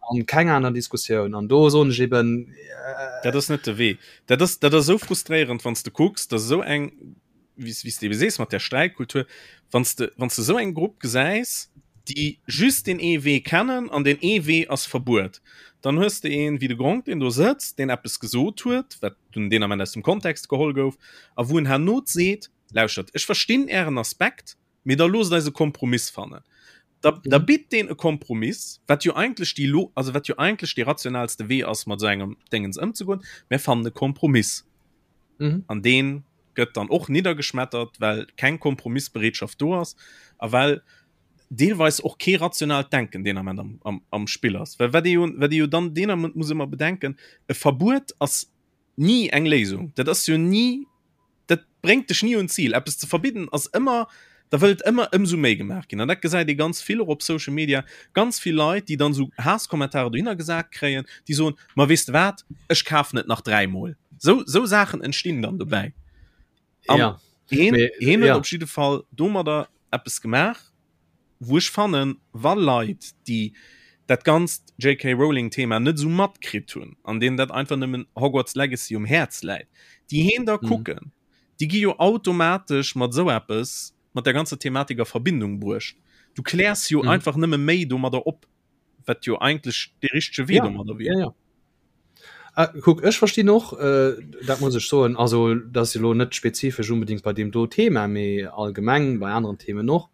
an ja. keng aner Diskussioun an do soen ech eben äh, dat ass net de Wee dat ass dat ass so frustréierend wann du kucks dass so eng wie wie du sees mat der Streitkultur wann du wann du so eng Grupp gesäis déi just den ee Wee kennen an den ee Wee ass Verbuet dann hues de een wéi de Gronk deen do sëtzt deen eppes gesot huet wat dunn deen Ament aus dem Kontext geholl gouf a wou en herno seet Lauschtert, ech verstinn Ären Aspekt, mee da loosst eis e Kompromiss fannen. Da, da bitt deen e Kompromiss, wat jo eigentlech déi lo, also wat jo eigentlech dee rationalste Wee ass, mat esou engem Déngens ëmzegoen. Mär fannen e Kompromiss. Mhm. An dee gëtt dann och niddergeschmettert, well keng Kompromissbereetschaft do ass a well deelweis och kee rationaalt Denken deen Ament am, am, am Spill ass. Well wat ee jo, wat ee jo dann deen Ament muss ëmmer bedenken, e Verbuet ass ni eng Léisung. Dat ass jo ni, dat bréngt dech ni un d'Zil. Eppes ze verbidden ass ëmmer, da wëllt ëmmer ëmsou méi gemaach ginn. An dat gesäit ee ganz vill och op Social Media, ganz vill Leit, déi dann esou Haasskommentarer dohinner gesat kréien, déi soen, ma weess de wat, ech kafen et nach dräimol. Sou, sou Saachen entstinn dann dobäi. An ja. heen, heen huet ja. op jidde Fall domadder eppes gemaach, wou ech fannen, wa Leit, déi dat ganzt JK. Rowling-Thema net esou matkritt hunn an deenen dat einfach nëmmen Hogwarts Legacy um Häerz läit, déi heen da mhm. kucken, déi gi jo automatesch mat esou eppes, mat der ganzer Thematik a Verbindung bruecht. Du kläers jo mhm. einfach nëmme méi domadder op, wat jo eigentlech de richtege Wee ja, domadder wier. Ja, ja. Ah, kuck, ech verstinn och, äh, dat muss ech soen, also dat ass elo net spezifesch unbedingt bei deem do Thema, mee allgemeng bei aneren Themen och,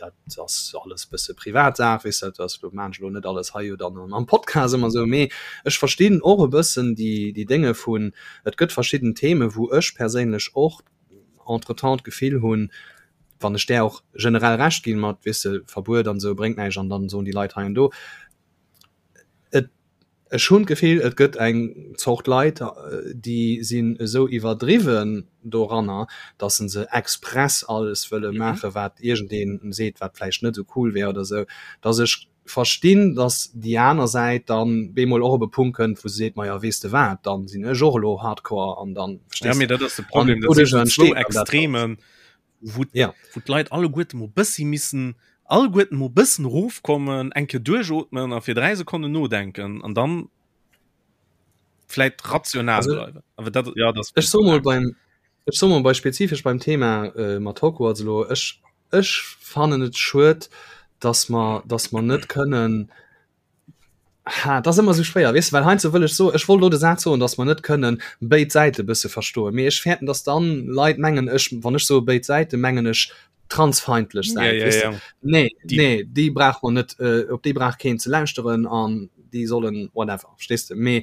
dat ass alles bësse Privatsaach, weess dat ass lo maan ech elo net alles hei jo dann am Podcast ëmmer esou, mee ech verstinn och e bëssen déi déi Dénge vun, et gëtt verschidden Theme wou ech perséinlech och entretemps d'Gefill hunn, wann ech där och generell Recht ginn mat, weess de, Verbuet an esou bréngt näischt an dann soen déi Leit hei an do, et Ech hunn d'Gefill, et gëtt eng Zort Leit, déi sinn esou iwwerdriwwen doranner, datt se se express alles wëlle maachen, wat iergendee seet, wat vläicht net esou cool wär oder esou, datt ech verstinn, datt déi aner Säit dann bemol och op e Punkt kënnt, wou se seet, Majo, weess de wat, dann sinn ech och elo hardcore an dann, verstees de? Dat ass de Problem, dat sinn zwou Extremen. wou ja. wou d'Leit alleguerte mo bëssi missen alleguerten mo bëssen rofkommen, eng Kéier duerchootmen a fir 3 Sekonnen nodenken an dann vläit rational also, bleiwen. Awer dat ja das ech so mol beim ech so mol bei spezifesch beim Thema äh, mat Hogwarts elo ech ech fannen et schued, dass mer dass mer net kënnen Ha, dat ass ëmmer esou schwéier, weess de, well heiansdo wëll ech soen, ech wollt elo de Saz soen, datt mer net kënnen béid Säite bësse verstoen, mee ech fäerten, datt dann Leit mengen, ech, wann ech soe béid Säiten, mengen ech transfeindlech Säit, Ja, ja, weess de. ja. Nee, Déi. nee, déi brauch mer net, op déi brauch keen ze lauschteren an déi sollen whatever, verstees de. Mee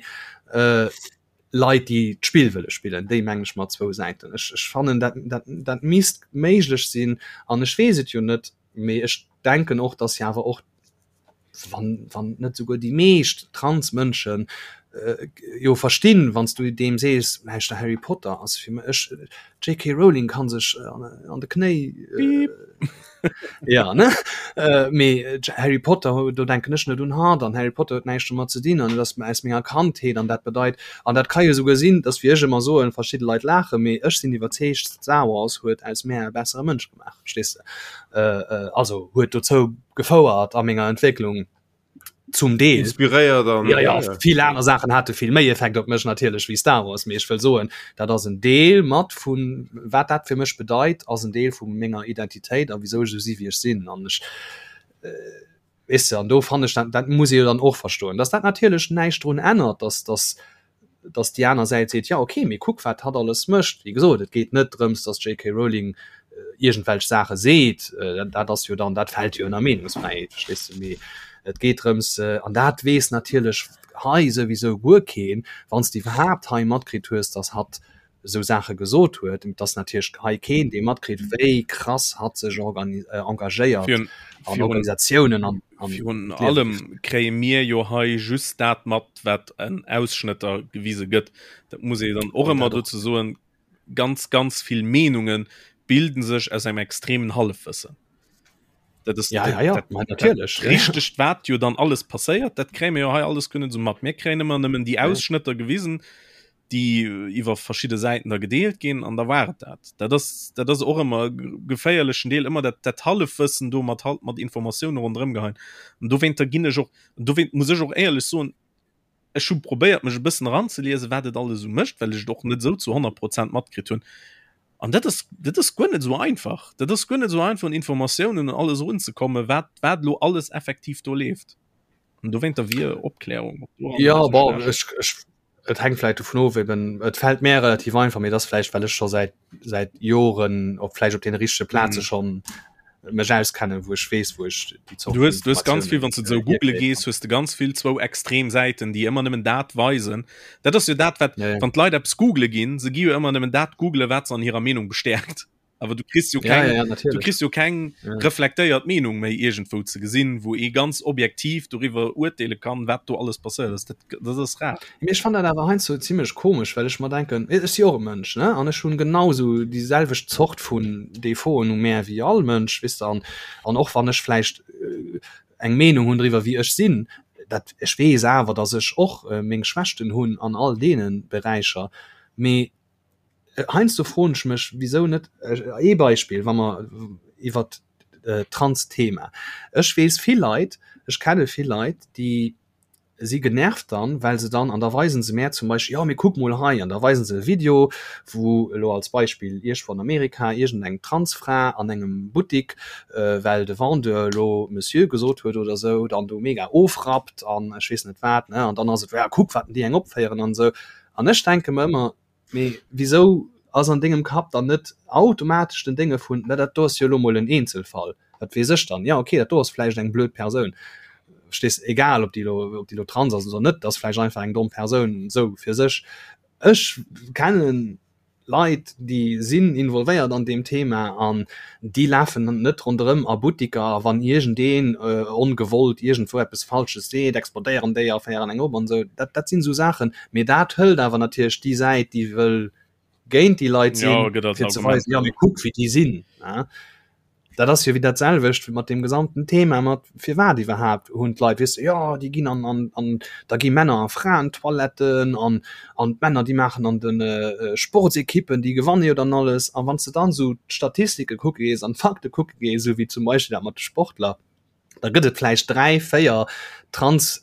Leit, déi d'Spill wëlle spillen, déi mengen ech mat zwou Säiten. Ech, ech fannen, dat, dat, dat misst méiglech sinn an ech weess et jo net, mee ech denken och, datt jo awer och wann, wann net souguer déi meescht Transmënschen äh, jo verstinn, wann s du deem sees, lauschter Harry Potter ass fir mech, JK Rowling kann sech äh, an, an de Knéi äh, ja ne äh, mee äh, Harry Potter do denken ech net un hatt an Harry Potter huet näischt domat ze dinn an et ass aus menger Kandheet an dat bedeit an dat ka jo souguer sinn, dass wéi ech ëmmer soen, verschidde Leit laachen, mee ech sinn iwwerzeegt, Star Wars huet aus mär e bessere Mënsch gemaach, verstees de? Äh, äh, also huet dozou gefouert a menger Entwécklung. Zum Deel. Inspiréiert an ja, ja, vill aner Saachen hate vill méi Effekt op mech natierlech wéi Star Wars, mee ech wëll soen, dat ass en Deel mat vun wat dat fir mech bedeit, ass en Deel vu menger Identitéit a wisou ech esou si wéi ech sinn an ech äh, weess de, an do fannen ech dat, dat muss ee jo dann och verstoen, dass dat natierlech näischt drun ännert, dass dass dass déi aner Säit seet, ja okay, mee kuck wat hatt alles mécht. Wéi gesot, et geet net drëms, dass d'JK Rowling iergendwelch Saache seet, dat ass jo dann, dat fält jo ënner Meenungsfräiheet, verstees de, mee et geet drëms, an dat weess natierlech hei souwisou guer keen, wann s de iwwerhaapt hei matkritt hues, dass hatt esou Saache gesot huet, et ass natierlech hei keen, dee matkritt, wéi krass hatt sech engagéiert an Organisatiounen an Virun allem kréie mir jo hei just dat mat, wat en Ausschnëtter gewise gëtt. Dat muss ee dann och ëmmer dozou soen, ganz, ganz vill Meenunge bilden sech aus engem extremen Hallefwëssen. Dat ass ja, ja, ja. Dat, dat, natierlech richtegt, wat jo dann alles passéiert, dat kréie mir jo hei alles kënnen esou mat. Mir kréien ëmmer nëmmen déi Ausschnëtter gewisen, déi iwwer verschidde Säiten da gedeelt ginn an da war et dat. Dat ass, dat ass och ëmmer e geféierlechen Deel, ëmmer dat, dat Hallefwëssen do mat halt mat Informatioune ronderëm geheien. An dowéinter ginn ech och, an dowéint muss ech och éierlech soen, ech hu probéiert mech e bëssen eranzeliesen, wat et alles esou mécht, well ech et och net esou zu 100 Prozent matkritt hunn. An dat ass, dat ass guer net esou einfach. Dat ass guer net esou einfach un Informatiounen an alles erunzekommen, wat, wat elo alles effektiv do leeft. An dowéinter wier Opklärung Ja, bon, ech, ech Et hänkt vläicht dovun of, eben et fält mär relativ einfach, mee et ass vläicht well ech scho säit säit Joren op vläicht op deene richtege Plaze mm. schonn mech auskennen, wou ech weess, wou ech déi Zort Du hues, du hues ganz vill, wann du sou google gees, hues du ganz vill zwou extrem Säiten, déi ëmmer nëmmen dat weisen. Dat ass jo dat, wat ja, ja. wann d'Leit eppes google ginn, se gi jo ëmmer nëmmen dat googlen, wat se an hirer Meenung bestäerkt. Awer du kriss jo keng, ja, ja, du kriss jo keng ja. reflektéiert Meenung méi iergendwou ze gesinn, wou ee ganz objektiv doriwwer urteele kann, wat do alles passéiert ass. Dat, dat ass rar. Mee ech fannen dat awer heiansdo zimmlech komesch, well ech mer denken, ech si och e Mënsch, ne, an ech hunn genau sou déi selwecht Zort vun Defauten u mär wéi all Mënsch, weess de, an, an och wann ech vläicht eng Meenung hunn driwwer wéi ech sinn, dat ech weess awer, datt ech och meng Schwächten hunn an all deene Beräicher, mee Heiansdo froen ech mech, wisou net ee Beispill, wa mer iwwert d'Trans-Thema, ech weess vill Leit, ech kenne vill Leit, déi si genervt dann, well se dann, an da weisen se mär zum Beispill, jo mee kuck mol hei, an da weisen se e Video, wou elo als Beispill iergendwou an Amerika iergendeng Transfra an engem Buttik, well de Vendeur elo Monsieur gesot huet oder esou, dann do mega ofrappt an ech weess net wat, ne, an dann ass et, ja kuck wat déi eng opféieren an esou. An ech denke mer ëmmer, Mee wisou ass an dengem Kapp dann net automatesch den Dénge vun, na dat do ass jo elo mol en Eenzelfall, wat weess ech dann, jo okay, dat do ass vläicht eng blöd Persoun, verstees, egal ob déi elo, ob déi elo trans ass oder net, ass vläicht einfach eng domm Persoun esou fir sech. Ech kennen Leit, déi sinn involvéiert an deem Thema an déi lafen net ronderëm a Buttiker a wann iergendeen ongewollt iergendwou eppes Falsches seet, explodéieren déi a féieren eng op an esou. Dat, dat sinn esou Saachen. Mee dat hëlt awer natierlech déi Säit, déi wëll géint déi Leit sinn, ja, fir ze weisen, ja mee kuck wéi déi sinn. Dat ass jo wéi dat selwecht mat deem gesamten Thema mat firwat iwwerhaapt hunn d'Leit, weess de, jo déi ginn an an an da gi Männer a Fraentoiletten an an d'Männer déi maachen an de Sportsekippen, déi gewanne jo dann alles. A wann s de dann esou d'Statistike kucke gees an d'Fakte kucke gees, esou wéi zum Beispill dat mat de Sportler, da gëtt et vläicht 3, 4 trans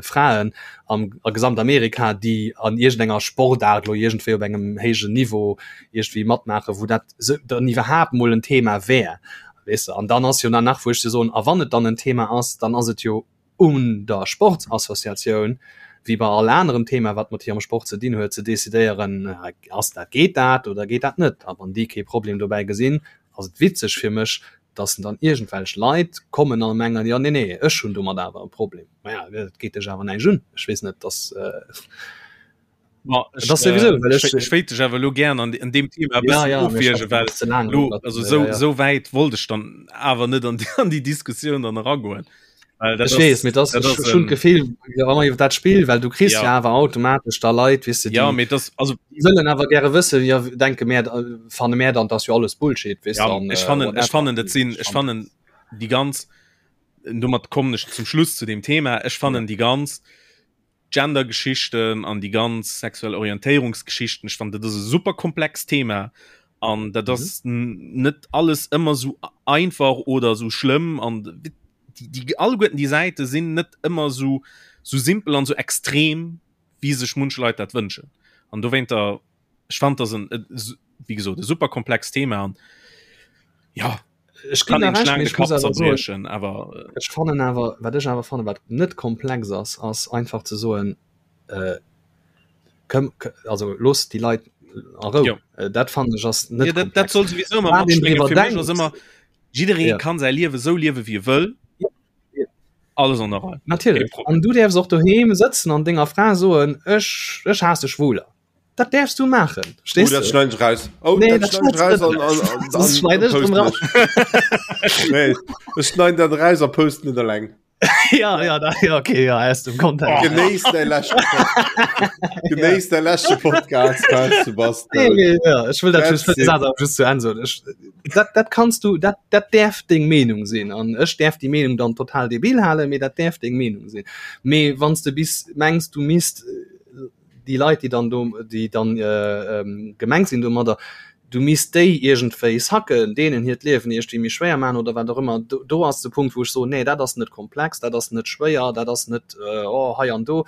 Fraen am a Gesamtamerika, déi an iergendenger Sportaart lo iergendwéi op engem héijen Niveau iergendwéi matmaachen, wou dat sou dann iwwerhaapt mol en Thema wär, weess de. An dann ass jo dann nach, wou ech dir soen, a wann et dann en Thema ass, dann ass et jo un der Sportsassociatioun, wéi bei all anerem Thema, wat mat hirem Sport ze dinn huet, ze decidéieren, ass dat, geet dat oder geet dat net. A wann déi kee Problem dobäi gesinn, ass et witzeg fir mech, dass dann iergendwelch Leit kommen a mengen, jo nee nee, ech hunn domat awer e Problem. Maja, dat geet dech awer näischt un. Ech weess net, dass Ma ech, das sowieso, äh, ech, ech wéilt dech awer lo gern an, an dem Thema ja, ja, ofwierge, well lo, also so, ja, ja. so wäit wollt ech dann awer net an, an déi Diskussioun dann eragoen. Ech weess, mee das, das schon Gefill iwwer dat Spiel, well du kriss ja, ja awer automatesch da Leit wis du, ja, mee das, also die wëllen awer gäre wësse ja denke mehr fanne mehr dann das jo alles Bullshit wis ja, dann, ech fannen, äh, ech fannen dat sinn ech fannen die ganz domat kommen ech zum Schluss zu dem Thema ech fannen ja. die ganz Gender-Geschichten an déi ganz sexuell Orientéierungsgeschichten, ech fannen dat ass e super komplext Thema an dat ass mhm. net alles ëmmer sou einfach oder sou schlëmm an déi. déi, déi alleguerten déi Säite sinn net ëmmer sou sou simpel an sou extrem wéi sech munch Leit dat wënschen an dowéinter ech fand das en wéi gesot e super komplext Thema an ja ech kann een schlaang de Kapp zerbriechen awer äh, ech fannen awer wat ech awer fannen wat net komplex ass ass einfach ze soen äh, komm, also looss déi Leit a Rou ja. äh, dat fannen ech ass net ja, dat, dat soll sowieso immer matschwingen. Fir mech ass ëmmer jidderee ja. kann säi Liewe sou liewe wie e wëll ja. Ja. alles an der Rei Natierlech an du däerfs och doheem sëtzen an denger Fra soen ech ech haasse Schwuler. Dat däerfs du maachen. Oh, dat schneiden ech raus. Oh, nee, dat schneiden ech raus an, an, an, an, schneid ech drum raus. nee, ech schneiden dat raus a posten et eleng. ja, ja, da, ja, okay, ja, aus dem Kontext. Oh. Genéiss däi leschte Genéiss däi leschte Podcast, Sebastian. Nee, nee, ja, ech wëll dat just, dat just zu Enn soen. Ech, dat, dat kanns du, dat, dat däerf deng Meenung sinn. An ech däerf déi Meenung dann total debil halen, mee dat däerf deng Meenung sinn. Mee wann s de bis mengs, du misst déi Leit, déi dann do, déi dann äh, gemengt sinn domadder, du misst déi iergendwéi sacken, deenen hiert Liewen iergendwéi méi schwéier maachen oder wat och ëmmer, do, do ass de Punkt, wou ech soen, nee, dat ass net komplex, dat ass net schwéier, dat ass net äh, oh, hei an do,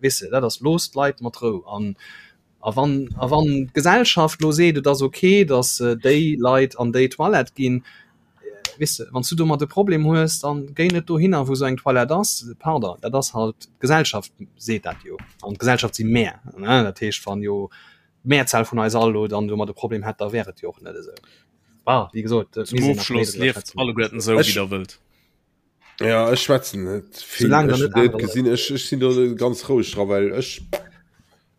weess de, dat ass, looss d'Leit mat Rou. An, a wann, a wann d'Gesellschaft lo seet, et ass okay, datt déi Leit an déi Toilette ginn, Weess de, wann s du domat e Problem hues, dann géi net dohinner, wou esou eng Toilette ass. Pardon, dat ass halt, d'Gesellschaft seet dat jo. An d'Gesellschaft si mär, ne? Dat heescht, wann jo d'Mehrzahl vun eis all elo dann domat e Problem hätt, da wär et jo och net esou. Bah, wéi gesot, et Zum misst een nach méi Ofschloss, driwwer lieft schwätzen. alleguerten esou, wéi Ech, der wëllt. ja, ech schwätzen net vill. Soulaang der Ech net hunn net aner Leit. gesinn, ech, ech sinn do ganz roueg dra, well ech,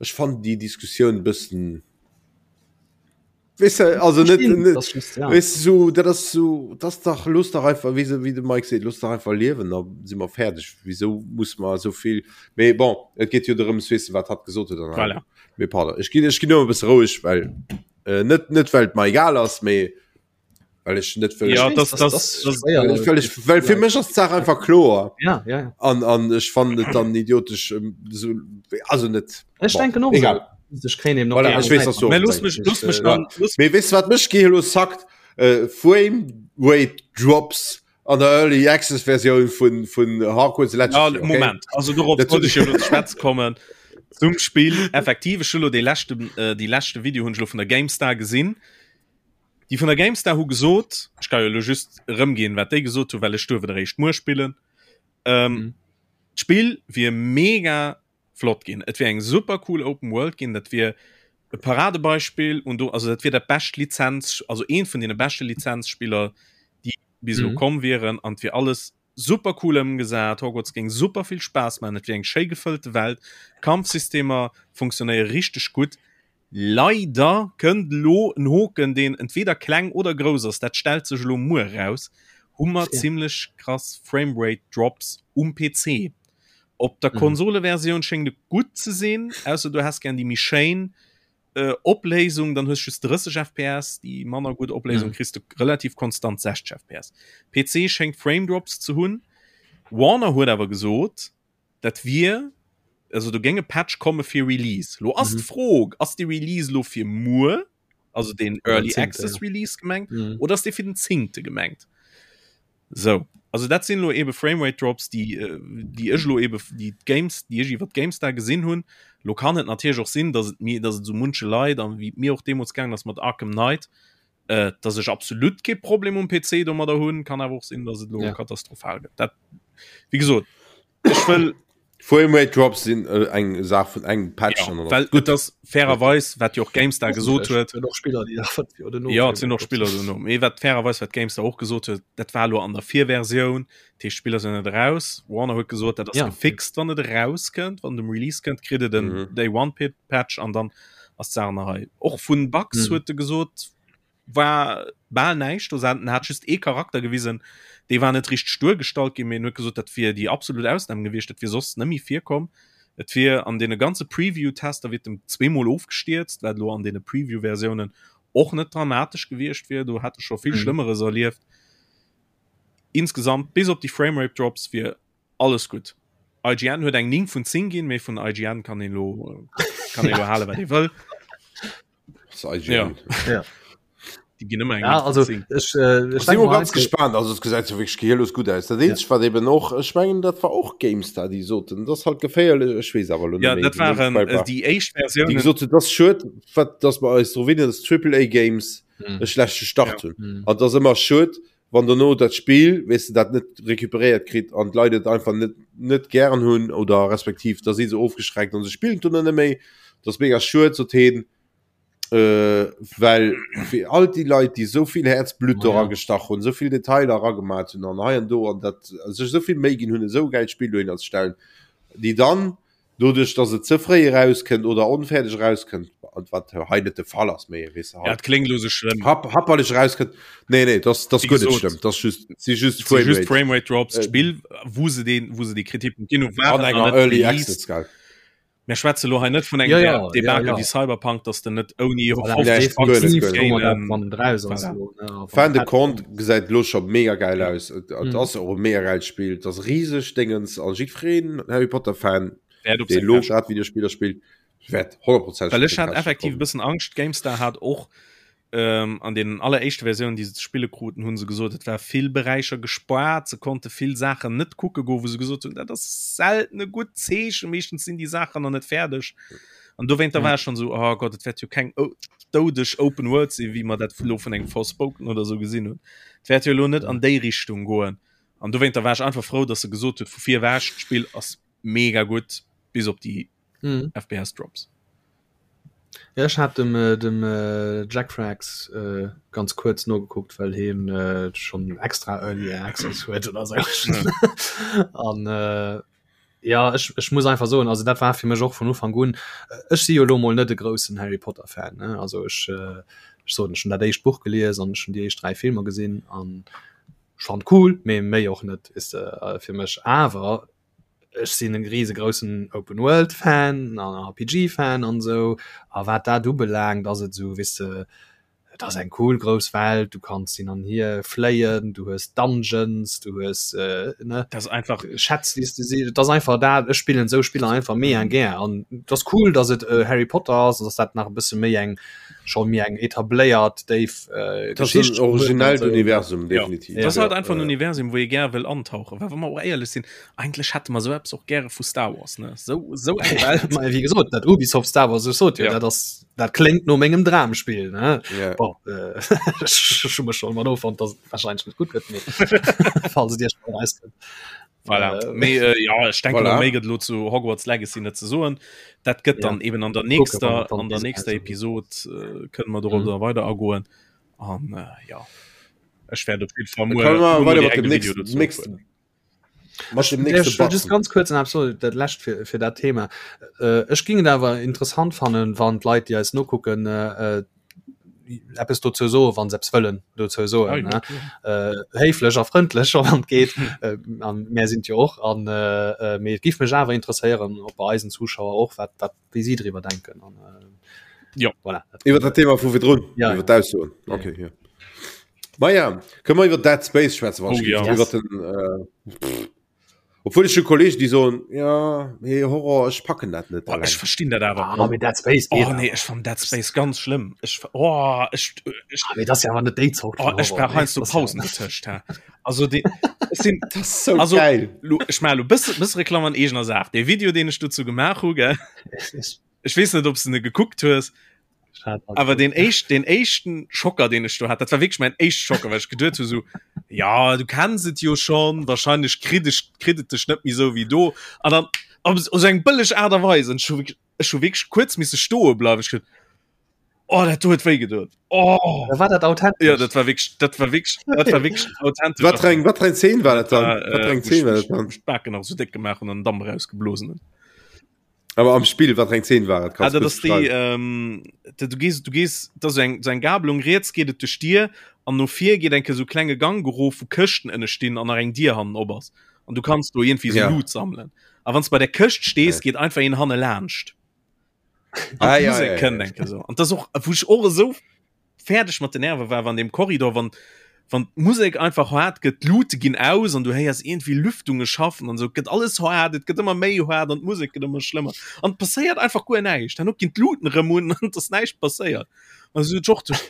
ech fannen déi Diskussioun e bëssen, Weißt du, also net, net das just, ja. weißt du, so, dat ass so, das dach los dach einfach wie, wie de Mike seet, los dach einfach liewen, da si mer fäerdeg. Wieso muss mer so vill? Mee bon, et geet jo drëms, weess de, wat hatt gesot huet an Voilà. Mee pardon, ech ginn ech ginn ëmmer e bësse roueg, well äh, net net well et mer egal ass, mee well ech net wëll Ja, weess, das, das- das, das das, schwéier. well, well, ech, well fir mech ass d'Saach einfach kloer Ja, ja, ja. an an ech fannen et dann idiotesch ähm, so, also net Ech bon, denken och egal. esou. Ech kréien eben och Voilà, déi ech weess, aner dass du Säit Mä och looss mech, denkst. looss mech Äh, dann, looss Mee weess wat mech gi lo sackt äh, Frame Rate Drops an der Early Access Versioun vun vun Hogwarts Ja, Legacy. Okay? Moment also dorop Dat- wollt ech jo lo ze schwätze kommen zum Spill effektiv ech hu lo dee leschten äh, déi leschte Video hunn ech lo vun der GameStar gesinn déi vun der GameStar hu gesot ech ka jo lo just erëmginn wat déi gesot hu well ech duerf et eréischt muer spillen ähm, Mhm. d'Spill wier mega flott ginn. Et wier eng super cool Open World ginn, dat wier e Paradebeispill und do also dat wier dat bescht Lizenz also eent vun deene beschte Lizenzspiller déi bis elo Mhm. komm wieren an et wier alles super cool ëmgesat. Hogwarts géing super vill Spaass maachen, et wier eng schéi gefëllte Welt, d'Kampfsystemer funktionéiere richteg gutt. Leider kënnt elo en Hoken, deen entweder kleng oder grouss ass, dat stellt sech elo muer eraus, hu mer zimlech krass Framerate Drops um PC. Op der Konsoleversioun schéngt et gutt ze sinn, ausser du häss gär déi méi schéin Opléisung, dann hues just 30 FPS, déi manner gutt Opléisung kriss de relativ konstant 60 FPS. PC schéngt Frame Drops ze hunn. Warner huet awer gesot, dat wier, also do géing e Patch komme fir Release. Lo ass d'Fro, ass dee Release lo fir muer, also deen Early Access Release gemengt, oder ass dee fir den zéngte gemengt? Sou, also dat sinn elo ebe Framerate Drops, déi, déi ech elo ebe, déi d'Games, déi ech iwwer d'GameStar gesinn hunn. Lo kann et natierlech och sinn, datt et mir, datt et esou munche Leit an wéi et mir och deemools gaangen ass mat Arkham Knight, äh, datt ech absolut kee Problem um PC domadder hunn. Kann awer och sinn, datt et elo Ja. katastrophal gëtt. Dat, wéi gesot, ech wëll Framerate Drops sinn äh, eng Saach vun engem Patch ja, an dann well gutt. et ass fairerweis, wat jo och GameStar gesot huet, Et och Spiller, déi nach 5 Joer dono Ja, et sinn och Frame-Rate Spiller dono. Mee wat fairerweis, wat GameStar och gesot huet, dat war elo an der Virversioun, dat heescht d'Spiller sinn net eraus. Warner huet gesot, dat ass Ja. gefixt, wann et erauskënnt, wann et um Release kënnt, kritt et en Mhm. Day One Pit Patch an dann ass d'Saach nach hei. Och vun Bugs Mhm. huet e gesot, war bal näischt do. En hat just ee Charakter gewisen, dee war net richteg duergestallt ginn, mee en huet gesot, dat wier déi absolut Ausnam gewiescht, dat wier soss net méi virkomm. Et wier an deene ganze Preview-Tester wier et em zweemol ofgestierzt, wat elo an deene Preview-Versiounen och net dramatesch gewiescht wier, do hätt e scho vill Schlëmmeres erlieft. Insgesamt, bis op déi Framerate-Drops, wier Alles gutt. IGN huet eng 9 vun 10 ginn, mee vun IGN kann een lo kann een lo halen, wat ee wëll. Das ist IGN. Ja. Ja. Déi ginn ëmmer eng Ja, 8 vun also 10. ech, äh, ech Ech si denke mol mal ganz gespaant, also et gesäit jo wierklech gehirlos gutt aus. Dat eenzegt wat eben och, ech mengen dat war och GameStar déi soten, dat ass halt geféierlech, ech weess awer elo Ja, net méi dat déi Names waren Quell äh, war, déi éischt déi Versiounen. gesot hunn, dat ass schued, wat dass mer eis dru winnen, dass Triple A Games Hm. e schlechte Start Ja. hunn. Hm. An et ass ëmmer schued, wann dono dat Spill, weess de, dat net recuperéiert kritt an d'Leit et einfach net net gären hunn oder respektiv da si se ofgeschreckt an se spillen et dono net méi. Dat ass mega schued, sot heen. Äh, well fir all déi Leit, déi esou vill Häerzblutt do Ma ja. ragestach hunn, esou vill Detailer eragemat hunn an hei an do an dat sech esou vill Méi ginn hunn, esou e gäilt Spill dohinner ze stellen, déi dann doduerch, datt et ze fréi erauskënnt oder onfäerdeg erauskënnt, an wat hei net de Fall ass, mee weess de Ja, halt et kléngt elo sou schlëmm. happ happerlech erauskënnt. Nee, nee, dat ass dat ass Wéi guer net gesot, schlëmm, dat ass just, si just et si just Framerate. Framerate Drops. Äh, D'Spill, wou se deen, wou se déi Kritikpunkt ginn hunn, an waren nach enger net Early released. Access, gell. Mir schwätze lo hei net vun engem Ja, ja, ja, Debakel ja. wéi Cyberpunk, dass de net ouni Voilà, Nee, 50 guer net, definitiv guer net. soe mer dat, Gainen wann et raus ass voilà. elo, ne, a wann Fan de et Compte gesäit lo scho mega geil Ja. aus. Et, et Mhm. ass och e mega geilt Spill. Et ass riseg Déngens an jiddwereen Harry Potter Fan, Wäert op dee seng lo Käschte grad Videospiller spillt, wäert 100%eg Well op ech seng hat Käschte effektiv e kommen. bëssen Angscht, GameStar hat och ähm, an den alleréischte Versiounen, déi se ze spille kruten, hu se gesot, et war vill Beräicher gespaart, se konnte vill Saachen net kucke goen, wou se gesot hunn, dat ass selten e gutt Zeechen, meeschtens sinn déi Saachen nach net fäerdeg. An dowéinter war ech schonn esou, oh Gott, et wäert jo keng doudeg Open World sinn, wéi mer dat elo vun engem Forspoken oder esou gesinn hunn. Et wäert jo elo net an déi Richtung goen. An dowéinter war ech einfach frou, datt se gesot huet, vu vir ewech, d'Spill ass mega gutt, bis op déi Mhm. FPS Drops. Ja, ech hat dem, äh, dem äh, Jack Frags äh, ganz kuerz nogekuckt, well hien äh, schon extra Early Access huet oder so. An äh, ja, ech, ech muss einfach soen, also dat war fir mech och vun Ufank un. Ech si jo lo mol net e groussen Harry Potter Fan, ne? Also ech, äh, ech soen, ech hunn dat éischt Buch gelies an ech hunn déi éischt 3 Filmer gesinn an ech fand cool, mee méi och net is äh, fir mech. Awer ech sinn e riesegroussen Open World Fan an RPG Fan an esou a wat dat ubelaangt ass et esou weess de et ass eng cool grouss Welt, du kanns hin an hier fléien, du hues Dungeons, du hues ne Dat ass einfach Schätz déi s de si et ass einfach dat ech spillen esou Spiller einfach mega gär an et ass cool datt et Harry Potter ass, datt dat nach e bësse méi eng scho méi eng etabléiert déif äh, Das ist ein originellt Universum definitiv. Ja. Das ist halt einfach ein Universum, wou ee gär wëll antauchen. Well wa mer och éierlech sinn, eigentlech hätte mer sou eppes och gäre vu Star Wars, ne? Sou, sou eng Welt. Ma wéi gesot, dat Ubisoft Star Wars, ech sot jo, Ja. dat ass, dat kléngt no mengem Dramspill, ne? Ja. Bon, äh, ech hu mech schonn mat offonnt, dass et wahrscheinlech net gutt gëtt, mee falls et Iech mal erauskënnt. Voilà. Äh, Mee, äh, ja, ech denke Voilà. voilà. méi gëtt lo zu Hogwarts Legacy net ze soen. Dat gëtt Ja. dann eben an der Kucke, wann nächster, et dann an der bis nächster raus ass. Episod äh, kënne mer dorop Mhm. da weider agoen. An äh, ja, ech werde op jeden Fall Dann muer, können wir muer weiter direkt mat dem e Video nächsten, dozou nächsten, uploaden. mat dem Ech nächsten wëll just Button. ganz kuerz an absolut dat lescht fir, fir dat Thema. Äh, ech ging et awer interessant fannen, wann d'Leit, déi eis nokucken, äh, äh, eppes dozou soen, wann se eppes wëllen dozou soen, Ah, ja, ne? klar. Äh, héiflech a frëndlech, wann et geet. Äh, an mär sinn et jo och. An äh, äh, mee et giff mech awer interesséieren, ob bei eisen Zuschauer och, wat, wat, wéi si driwwer denken. An, äh, Ja. voilà. Dat Iwwer dat Thema vu virdrun, Ja, iwwer ja. d'Aussoen. Ja, Okay, ja. Ma ja, kënne mer iwwer Dead Space schwätzen, wann Oh, ech ja. giff. Iwwer den, äh, pff. Obwuel ech hu Kollegen, déi soen, ja, mee Horror, ech packen dat net Boah, ech alleng. verstinn dat awer. Ah, mee Dead Space Oh geet nee, awer. ech fann Dead Space ganz schlëmm. Ech, oh, ech, ech, Ah, mee dat ass jo awer net déi Zort oh, vun ech Horror, brauch nee. heiansdo Das ass ja Pausen dotëscht. Hä? Also de, ech sinn, Dat ass sou also, geil. lo, ech maache lo bësse, bësse Reklamm an eegener Saach. Dee Video, deen ech dozou gemaach hu, gell? Ech weess net, ob s de ne gekuckt hues. Awer den éischt, den éischten Schocker, deen ech do hat, dat war wierklech mäin éischte Schocker, well ech geduet hu sou, ja, du kenns et jo schonn, wahrscheinlech kritt ech, kritt et dech net méi sou wéi do. An dann op sou eng bëlleg Aart a Weis, an ech hu wierklech, ech hu wierklech kuerz misse stoe bleiwen. Ech geduet, oh, dat do huet wéi gedoen. Oh! Da war dat authentesch. Ja, dat war wierklech, dat war wierklech, dat war wierklech authentesch. Wat fir eng, wat fir eng Zeen war dat dann? War, Wat fir äh, eng wou Zeen ech war mech, dat dann? mech d'Baken nach sou déck gemaach hunn an den Damp erausgeblosen hunn. Aber am Spill wat eng 10 war ah, dat ass déi ähm, du gehst du gehst da so eng so eng Gabelung riets geht et duerch Dier an no vir geht enke so klenge Gang gerof wo Këschten ënne stinn an nach eng Dier hannen op ass an du kannst do irgendwie so ja. Loot sammelen a wann bei der Këscht stees ja. geht einfach een hanne laanscht ah, ja, ja, ja, kënnt ja. enke so an das och wou ich och esou fäerdeg mat den Nerve war an dem Korridor wann wann d'Musek einfach haart gëtt d'Luute ginn aus an du héiers iergendwéi Lüftunge schaffen an esou gëtt alles haart et gëtt ëmmer méi haart an d'Musek gëtt ëmmer schlëmmer an et passéiert einfach guer näischt herno ginn d'Luuten erëm un an et ass näischt passéiert an esou och duerch.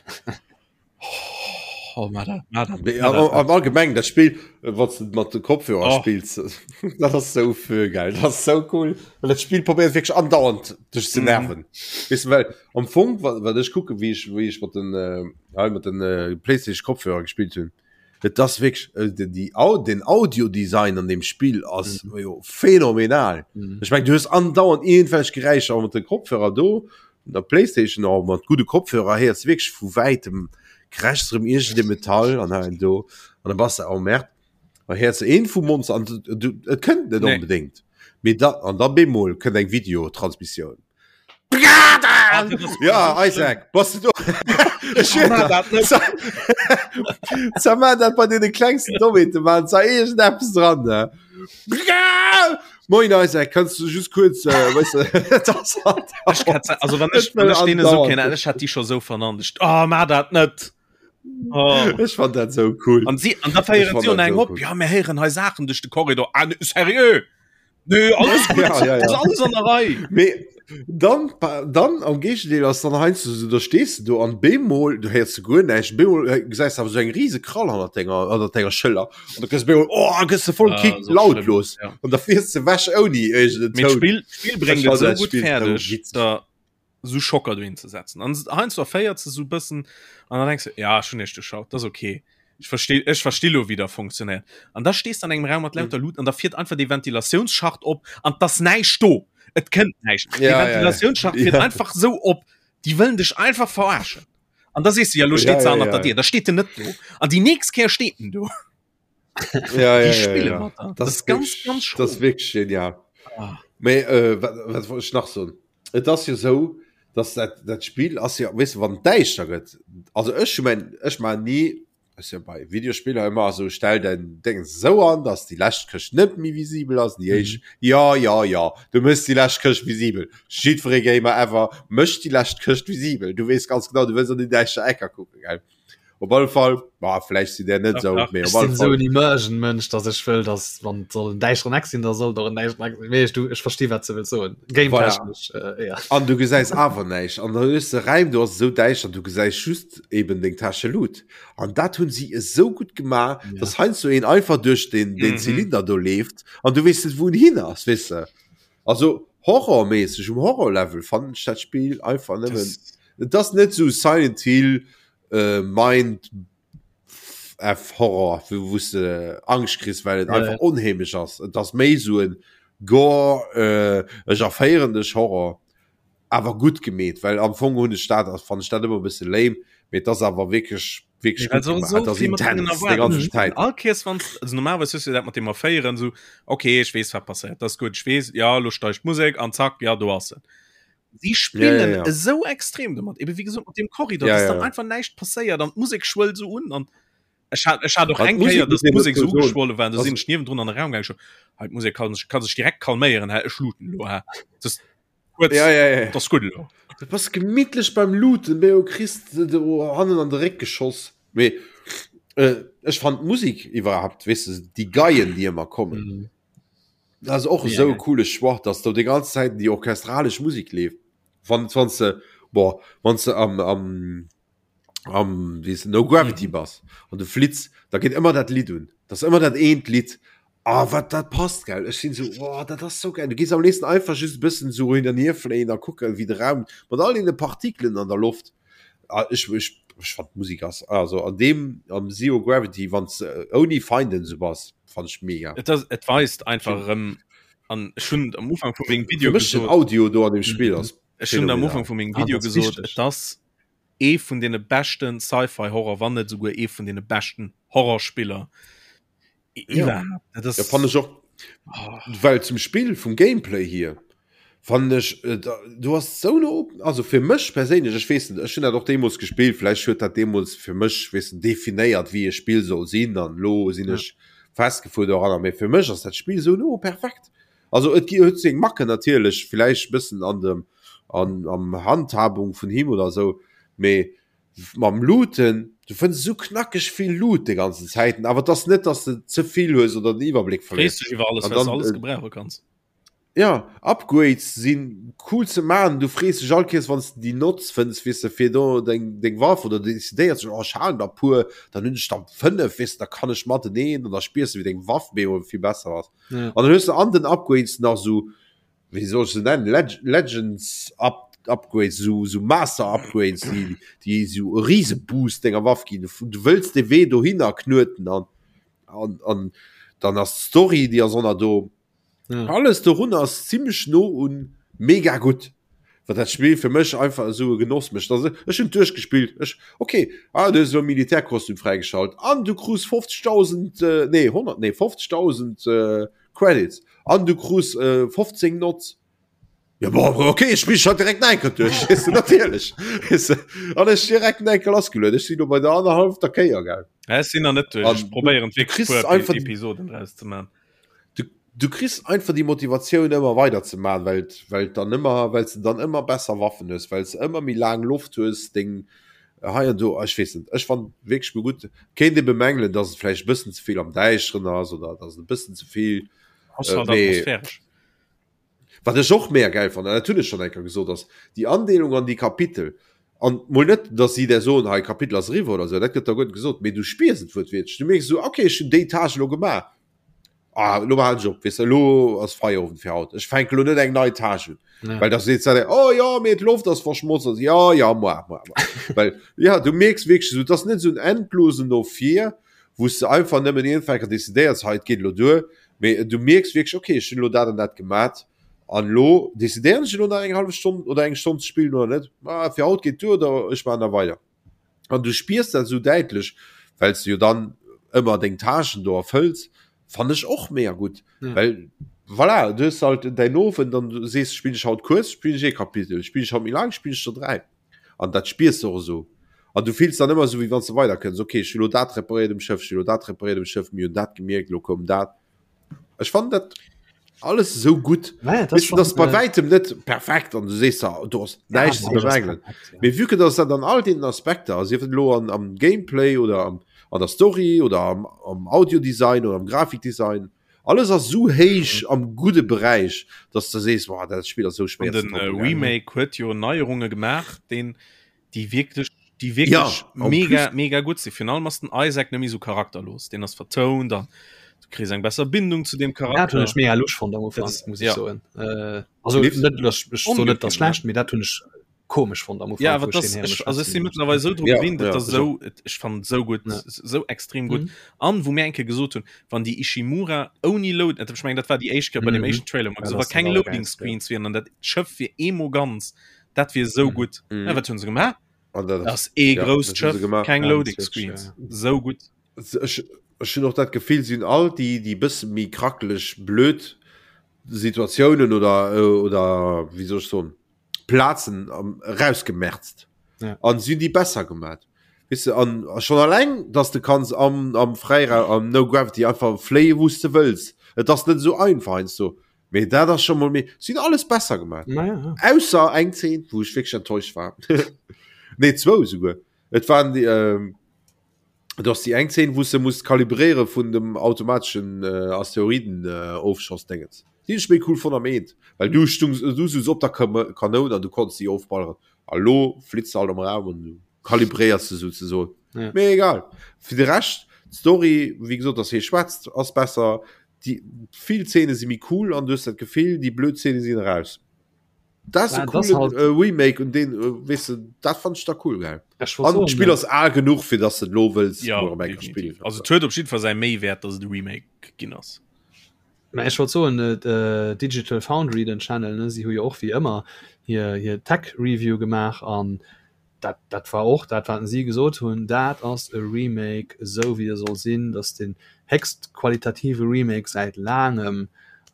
Oh, ma dat, ma dat, Nee, ma am, dat. am allgemeng dat Spill äh, wat du mat de Kopfhörer Oh. spills dat ass sou fö geil dat ass sou cool well dat Spill probéiert wierklech andauernd dech ze Mhm. nerven weess du well am Fong wat, wat ech kucke wéi ech wéi ech mat den äh, hei mat den äh, Playstation Kopfhörer gespillt hunn et ass wierklech äh, de, die Au den Audiodesign an dem Spill ass mhm. jo phänomenal Mhm. Ech meng du hues andauernd irgendwelch Geräischer mat de Kopfhörer do der Playstation och mat gudde Kopfhörer héiers du wierklech vu wäitem krächzt erëm iergend e Metall an hei an do an da bass de oh merde da héiers de een vum Monster an du, du, et kënnt net Nee. onbedéngt mee da an da bemol kënnt eng Videotransmissioun Ah, dat ass ja Isaac bass du do Ech schwör Ma der, dat net. Sa- Sa ma dat bei deene klengsten Dommheete man sa iergendeppes dran ne Moin Isaac, kannst du just kurz äh, weißt du, das hat Ech hat, also wann ech, wann ech denen so kennen, ech hat die schon so vernannt. Ich, oh, ma dat net. Oh. Ech fand dat so cool. An sie an da feieren fand sie und dat eng so op cool. ja mir héieren hei Sachen duerch de Korridor ah, ne, seriö Nö, alles gut. Ja, ja, ja. Das ist alles an der Rei. Mee dann, dann am Géigendeel ass dann heiansdo sou, da stees de do an bemol, du héiers du guer näischt, bemol äh, gesäis awer sou eng riese Krall hannert denger, hannert denger Schëller an da gëss bemol, oh, gëss de voll Ah, Kick so lautlos schlimm, ja. an da fiers de wech ouni iergend en Mee Toun. d'Spill, d'Spill bréngt Ech et fand sou dat gutt Spill sou fäerdeg, witzeg. da sou Schocker dohin ze setzen. An heiansdo erféiert se sou bëssen an dann denkst du, ja, ech hunn iech duerchschaut, dat ass okay. Ech versti, ech versti lo, wéi der funktionéiert. An da stees de an engem Raum mat lauter Luuten an da fiert einfach dee Ventilatiounsschacht op an 't ass näischt do. Et kënnt näischt. Ja, Dee ja, ja. Ventilatiounsschacht fiert Ja. einfach sou op. Déi wëllen dech einfach verarschen. An da sees du, ja, lo Ja, steet se ja, hannert ja. der Dier. Da steet en net do. An déi nächst Kéier steet en do. Ja, ja, Déi ja, spille ja. mat der. Das Das ist ist ganz, wirklich, ganz das schro. ist wirklich genial. Ah. Mee, äh, wat, wat wollt ech nach soen? Et ass jo sou, dass dat, dat Spill ass jo, weess de, wann et däischter gëtt, also ech hu mäin, ech maachen ni, ass jo bei Videospiller ëmmer esou, stell däin Déngens esou an, dass déi lescht Këscht net méi visibel ass, déi éischt, jo, jo, jo, du méchs déi lescht Këscht visibel. Jiddweree Gamer ever mécht déi lescht Këscht visibel. Du weess ganz genau, du wëlls an déi däischter Ecker kucken, gell? Op alle Fall, ma vläicht sinn där net Dach, esou, dach. mee Ech op alle sinn esou Fall. en Immersion-Mënsch, datt ech wëll, datt wann et soll en däischteren Eck sinn, da soll et och en däischteren Eck sinn. Mee ech, du, ech versti wat s de wëlls soen. Voilà. Game-technesch, äh, ja. An du gesäis awer näischt. An dann hues de Räim, do ass et esou däischter, du gesäis just eben deng Täsche Loot. An dat hunn si esou gutt gemaach, Ja. dass heiansdo een einfach duerch den, den Mhm. Zylinder do leeft an du weess net, wou en hin ass, weess de. Also horrorméisseg, um Horror-Level fannen ech dat Spill einfach nëmmen. Das, Et ass net esou Silent Hill, äh, Mind F Horror, wou wou s de Angscht kriss, well et Ja, einfach ja. onheemlech ass. Et ass méi sou en Gore, äh, ech erféieren dech Horror, awer gutt gemeet, well am Fong hunn ech dat, fannen ech dat ëmmer e bësse lame, mee et ass awer wierklech, wierklech Well gutt se gemaach. so Et ass vill mat deenen intens déi Erwaardungen ganzen spillen. Zäit. All Keers wann also normalerweis hues du dat mat dem Erféieren sou, okay, ech weess wat passéiert, dat ass gutt, ech weess, ja, lo steigt d'Musek an zack, ja, do ass en. Sie Ja, ja, spillen ja. esou extrem domat, eben wéi gesot mat dem Korridor, Ja, dass ja, dann ja. einfach näischt passéiert an d'Musek schwëllt sou un an ech hat ech hat och An eng d'Musek Kéier, muss dass een d'Musek dozou sou soen, ugeschwolle war, do ass sinn ech niewendrun an de Raum gaangen, ech sou, hei d'Musek kann sech kann sech direkt kalméieren, hä, ech looten elo, hä, das kuerz, Ja, ja, ja. dat ass gutt elo. Du bass gemittlech beim Looten, mee du kriss de do hannen an de Réck geschoss. Mee äh, ech fand d'Musek iwwerhaapt, weess de, déi Geien, déi ëmmer kommen. Mhm. Dat ass och Ja, esou e ja. coole Choix, dass do déi ganz Zäit déi orchestralesch Musek leeft. Wann wann s de boah, wann s de am am am wéi heescht No Gravity bass an du flitts, da geet ëmmer dat Lidd un. Dat ass ëmmer dat eent Lidd. Ah, wat dat passt, gell. Ech sinn esou, oh, dat ass sou geil. Du gees am léifsten einfach just e bëssen esou hin an hier fléien a kucken, wéi de Raum mat all deene Partikelen an der Loft. Ah, ech ech ech fand d'Musek ass also an deem am Zero Gravity, wann s de ouni Feinden esou bass, fand ech mega. Et ass et weist einfach erëm an ech hunn am Ufank vu mengem Video Fir mech den gesot, Audio do an dem Spill ass ech hunn am phänomenal. Ufank vu mengem Ah, Video dat ass gesot, wichteg. et ass ee vun deene beschten Sci-Fi-Horror, wann net esouguer ee vun deene beschten Horrorspiller Ja. iwwerhaapt. Dat ass Ja, fand ech och oh, well zum Spill vum Gameplay hier fand ech äh, da, du hast so no also fir mech perséinlech ech weess net ech hunn dat och deemools gespillt vläicht huet dat deemools fir mech weess de definéiert wéi e Spill soll sinn an lo sinn Ja. ech festgefuer doranner mee fir mech ass dat Spill sou no perfekt also et gi huet seng Macken natierlech vläicht bëssen an dem an am Handhabung vun him oder sou mee mam Looten, du fënns esou knackeg vill Loot de ganzen Zäiten, awer et ass net, dass de ze vill hues oder den Iwwerbléck frees verléiers. dech iwwer alles, An well s dann, alles äh, gebrauche kanns. Ja, Upgrades sinn cool ze maachen, du frees dech all Kéiers wann s de déi notz fënns, weess de, fir do deng deng Waff oder du decidéiers dech, oh ech halen der puer, dann hunn ech der 5, weess de, da kann ech mateneen an da spiers de wéi deng Waff bemol vill besser ass. Ja. An dann hues de an den Upgrades nach sou, wéi soll ech se nennen, Leg Legends Up Upgrades, sou sou Master Upgrades, déi déi sou e Riseboost denger Waff ginn, du wëlls de Wee dohinner knueten an an an dann ass d'Story, déi ass och nach do. Ja. Alles dorun ass ziemlech no un mega gutt. Wat dat Spill fir mech einfach esou e Genoss mécht. Also ech hunn duerchgespillt. Ech okay, ah, du hues elo Militärkostüm fräigeschalt an du krus 50.000 äh, nee 100 nee 50.000 äh, Credits an du krus äh, 15 Nots. Ja, bon, okay, ech spill schon direkt enker duerch weißt du, natierlech. Weißt du, an ech direkt enker lassgeluet. Ech sinn lo bei der annerhallefter Kéier gell. Ja, ech sinn nach net duerch. An Ech probéieren du wierklech kriss puer einfach die- Episoden draus ze man. du, du kriss einfach die Motivatioun ëmmer weider ze man, well well dann ëmmer well du dann ëmmer besser Waffen hues, well du ëmmer méi laang Loft hues, deng hei an do ech weess net. Ech fand wierklech mol gutt. Kéint ee bemängelen, dass et vläicht e bëssen ze vill am Däischteren ass oder dass et e bëssen ze vill Ass Äh, halt mee- atmosphäresch. Wat ech och mega gäil fannen, dat hunn ech schonn eng Kéier gesot, ass déi Andeelung an déi Kapitel. An mol net, datt si der soen, hei Kapitel ass eriwwer oder esou, dat gëtt der guer net gesot, mee du spiers et wuertwiertlech. Du mierks esou, okay, ech hunn déi Tâche elo gemaach, ah, elo halen ech op, weess de, elo ass Feierowend fir haut, ech fänke elo net eng nei Tâche un. Ja. Well da seet se, oh jo, mee d'Loft ass verschmotzt, also, jo, jo, moi, moi, moi. Well, ja, du mierks wierklech esou, et ass net esou en endlosen No vir, wou s de einfach nëmmen iergendwann eng Kéier decidéiers, hei, et geet elo duer, Mee du mierks wierklech, okay, ech hunn elo dat an dat gemat an elo decidéieren ech elo nach eng hallef Stonn oder eng Stonn ze spillen oder net. Ma fir haut geet duer oder ech maachen da weider. An du spiers dat esou däitlech, well s de jo dann ëmmer deng Tâchen do erfëlls, fannen ech och mega gutt. Ja. Well voilà, du hues halt däin Owend an du sees, spillen ech haut kuerz, spillen ech ee Kapitel, spillen ech haut méi laang, spillen ech der 3. An dat spiers de och esou. An du fills dann ëmmer esou, wéi wann s de weiderkënns. Ok, ech hu lo dat reparéiert um Schëff, ech hu lo dat reparéiert um Schëff, mir hunn dat gemierkt, lo koum dat. Ech fannen dat alles esou gutt. Naja, dat Weess du, dat ass bei äh, wäitem net perfekt an du sees da, do ass ja, näischt ze näischt ass bemängelen. perfekt, ja. Mee vue que dass dat an all deenen Aspekter, sief et elo an, am Gameplay oder am, an der Story oder am, am Audiodesign oder am Grafikdesign, Alles ass sou héich am gudde Beräich, dass de sees, Boah, dat Spill ass sou An schwéier ze den äh, toppen, gell? Remake huet jo Neierunge gemaach, den déi wierklech déi Ja, wierklech en mega plus. mega gutt sinn. Virun allem ass den Isaac net méi sou charakterlos, deen ass vertount an du kriss eng besser Bindung zu deem Dat hunn Charakter. ech mega lusch fonnt am Dat Ufank, ass muss ech ja. soen. Äh, also Lift? net, ech, ech soen net, dat Ongewinnt, schlecht, mee dat hunn ech komesch fonnt am Ufank, Ja, awer wou ech das, deen héiere ech, also ech schwätzen si hunn. mëttlerweil sou dru Ja, gewinnt, ja, et ass ech och. sou, et, ech fannen et sou gutt, Ja. sou extrem gutt. Mhm. An wou mir eng Kéier gesot hunn, wann déi Ishimura ouni Load, ech mengen dat war déi éischt Kéier bei dem Mhm. éischten Trailer, wou mer Ja, gesot dat wa ass dat keng Loading allergeilste, ja. Screens wieren an dat Schëff wier eemol ganz, dat wier sou Mhm. gutt. Mhm. Ja, wat hunn se gemaach? An dat Dat ass ee ja, grousst dat hu se Schëff, gemaach. keng Ja, Loading Switch, Screens, ja. sou gutt. Ech, ech hunn och dat Gefill, si hunn all déi, déi bësse méi krackeleg, blöd Situatiounen oder, oder wéi soll ech soen, Plazen erausgemerzt ja. an si déi besser gemat. Weißt du, an schon alleng, dass du kannst am, am Freiraum am No Gravity einfach fléie wous de wëlls. Et ass net so einfach heiansdo. Mee dat ass schon mol méi sinn alles besser gemat. Ja, ja. Ausser eng Zeen, wou ech wierklech enttäuscht war. nee zwou souguer. Et waren déi ähm, Et ass déi eng Zeen, wou s de muss kalibréiere vun dem automateschen Asteroiden-Ofschoss-Déngens. Déi hunn ech méi cool fonnt am Eent, well du stungs, du souz op der Kanoun an du konns déi ofballeren. A lo flitts de halt am Raum an du kalibréiers se souzesoen. Ja. Mee egal. Fir de Rescht, d'Story, wéi gesot, dass hie schwätzt, ass besser. Déi vill Zeene si méi cool an du hues dat Gefill, déi blöd Zeene sinn eraus. Dat ass e coolen halt äh, Remake und den äh, weißt du, dat fand ich da cool geil. An d'Spill ass al genuch fir dass du lo wëlls ja, spielen. Also huet op jeden Fall säi Méiwäert, dass et e Remake ginn ass. Mä ech wollt soen äh, Digital Foundry den Channel ne si hu jo och wéi ëmmer hir hir Tech Review gemaach an dat dat war och dat wat si gesot hunn, dat ass e Remake esou wéi e soll sinn, dat ass den héchst qualitative Remake säit laangem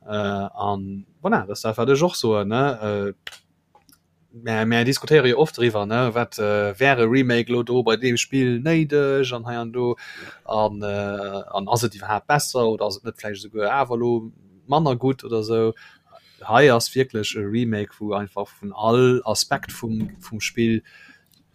an voilà, dat ass dat wat ech och soen ne. Mä mär diskutéiere jo oft driwwer ne, wat wär e Remake elo do bei deem Spill néideg an hei an do an an ass et iwwerhaapt besser oder ass et net vläicht esouguer awer elo manner gutt oder esou. Hei ass wierklech e Remake wou einfach vun all Aspekt vum vum Spill,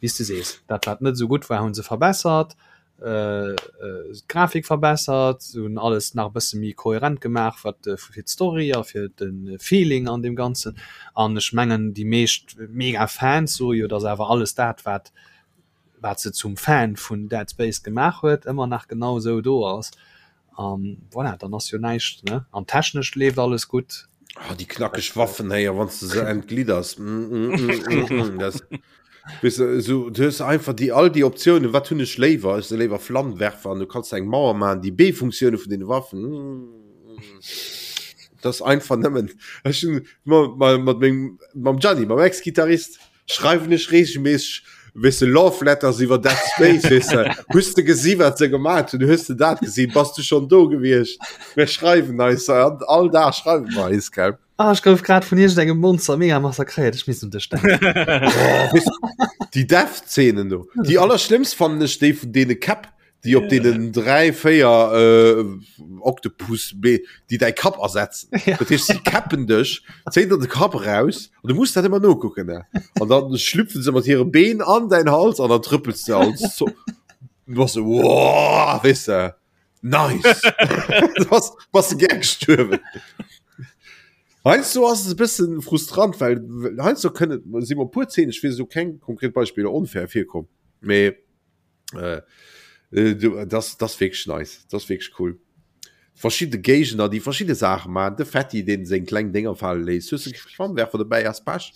wéi s de sees, dat wat net esou gutt war hu se verbessert. d'Grafik verbessert, se hunn alles nach e bësse méi kohärent gemaach, wat fir d'Story a fir de Feeling an deem Ganzen. An ech mengen déi meescht mega Fans soe jo, datt awer alles dat wat wat se zum Fan vun Dead Space gemaach huet, ëmmer nach genau esou do ass. An voilà, dann ass jo näischt ne. An technesch leeft alles gutt. Oh, déi knackeg Waffen héier wann du se entglidders. Mm, mm, mm, mm, mm. Das, weißt du, so, du hues einfach déi all déi Optiounen, wat hunn ech léiwer? Ech se léiwer Flammenwerfer an du kanns eng Mauer maachen, déi B-Funktioune vun den Waffen. Mm, mm. Das einfach nëmmen. Ech hunn mat mat mengem mam Gianni, mam Ex-Gitarrist, schreiwen ech regelmäßig weess de Love Letters iwwer Dead Space weess de. Hues de gesi wat se gemaat hunn? Hues de dat gesinn? Bass du schon do gewiescht? Mir schreiwen eis all all Dag schreiwe mer eis gell. Ah, ech gouf grad vun iergendengem Monster mega massakréiert. Ech misst un dech denken. Oh, weess de, déi Death-Szenen do. Déi allerschlimmst fannen ech déi vun deene Käpp, déi op deenen 3, 4 äh, Oktopus, déi däi Kapp ersetzen. Ja. Dat heescht, si käppen dech, zéien der de Kapp raus an du muss dat ëmmer nokucken. Ne? An dann schlüpfen se mat hire Been an däin Hals an dann trëppels du als so, du bass so, wow, weess de, nice. du bass, bass du gär gestuerwen. Heiansdo ass es e bëssen frustrant, well heiansdo kënnen, si mer puer Szenen, ech weess elo keng konkret Beispiller, onfair virkomm, mee Äh, äh, du, das, das wirklich nice. Das wirklich cool. Verschiedene Gegner, die verschiedene Sachen machen. De Fetti, den seng kleng Dinger fallen lässt. Hues du Flammenwerfer dabei as Pech.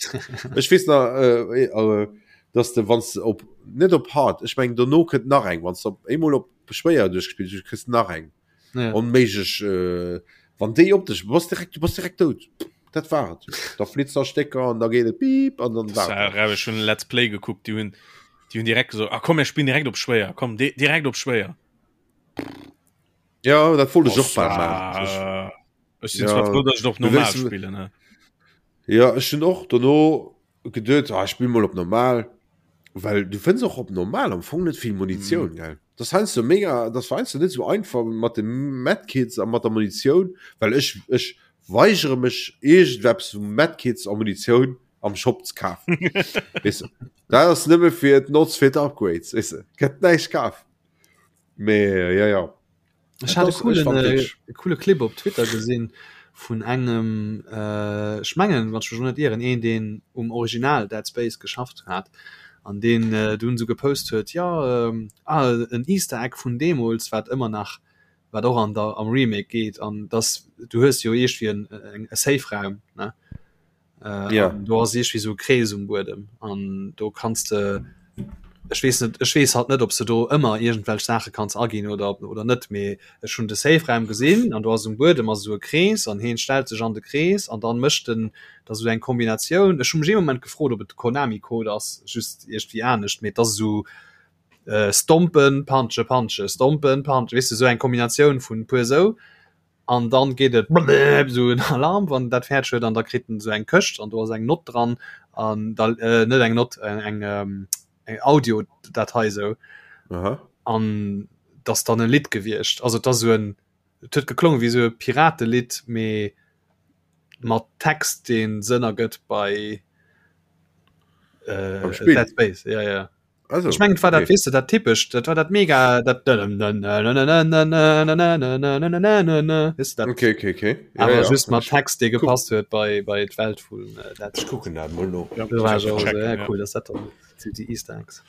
Ech weess nach, äh, äh, dass de wanns de op net op hard, ech meng dono kënnt nach eng, wanns de op eemol op schwéier duerchgespillt hues, kriss de nach eng. Ja. Onméiglech, äh, wann déi op dech, bass direkt, du bass direkt dout. Dat war et. Da flitzt der Stécker an da geet et piep an dann war et. Dat. Ech hunn Let's Play gekuckt, déi hunn déi hunn direkt gesot, ah komm mir spillen direkt op schwéier, komm di direkt op schwéier. Ja, dat wollt ech och bal maachen. Ech sinn zwar frou, datt ech et op normal spillen. Ne? Ja, ech hunn och dono geduet, ah, ech spill mol op normal, well du fënns och op normal am Fong net vill Munitioun, mm. gell? Das heiansdo mega, das war heiansdo net sou einfach mat de Medkits a mat der Munitioun, well ech ech weigere mech iergendeppes vu Medkits a Munitioun am Shop ze kafen. Weess de? Dat ass nëmme fir d'Notz fir d'Upgrades, weess de? Gëtt näischt kaf. Mee ja ja. Ech hat e coolen, äh, coole Clip op Twitter gesinn vun engem äh, ech mengen wann ech mech net ieren een deen um Original Dead Space geschafft hat an deen äh, dunn sou gepost huet ja ähm, ah, en Easter Egg vun deemools wat ëmmer nach wat och an der am Remake geet an dass du hues jo iergendwéi en, en, e Safe Raum ne Äh, ja. Do ass iergendwéi sou e Krees um Buedem an do kanns de ech weess net ech weess halt net ob se do ëmmer iergendwelch Saache kanns aginn oder oder net mee ech hunn de Safe-Raum gesinn an do ass um Buedem ass esou e Krees an heen stellt sech an de Krees an dann mécht en da sou eng Kombinatioun ech hu mech ee Moment gefrot ob et de Konami-Code ass just iergendwéi anescht mee et ass esou äh, stompen punche punche stompen punche weess de sou eng Kombinatioun vun puer sou an dann geet et blëpp esou en Alarm wann dat fäerdeg huet an da kritt en esou eng Këscht an do ass eng Nott dran an da äh, net eng Nott eng eng, ähm, eng Audiodatei esou Aha. an dat ass dann e Lidd gewiescht also et ass esou en et huet geklongen wéi esou e Piratelidd mee mat Text deen Sënn ergëtt bei äh, Beim Spill? Dead Space ja ja. Also, Ech mengen et war dat okay. weess de dat typescht dat war dat mega dat weess de dat Okay, okay, okay. Ja, awer ja. just mat Ich, Text dee guck, gepasst huet bei bei d'Welt vun äh, Dead ich Space. gucken dat mol no. Ja, Do war ech checken, och esou, ja ja. cool, dass dat dann déi Easter Eggs.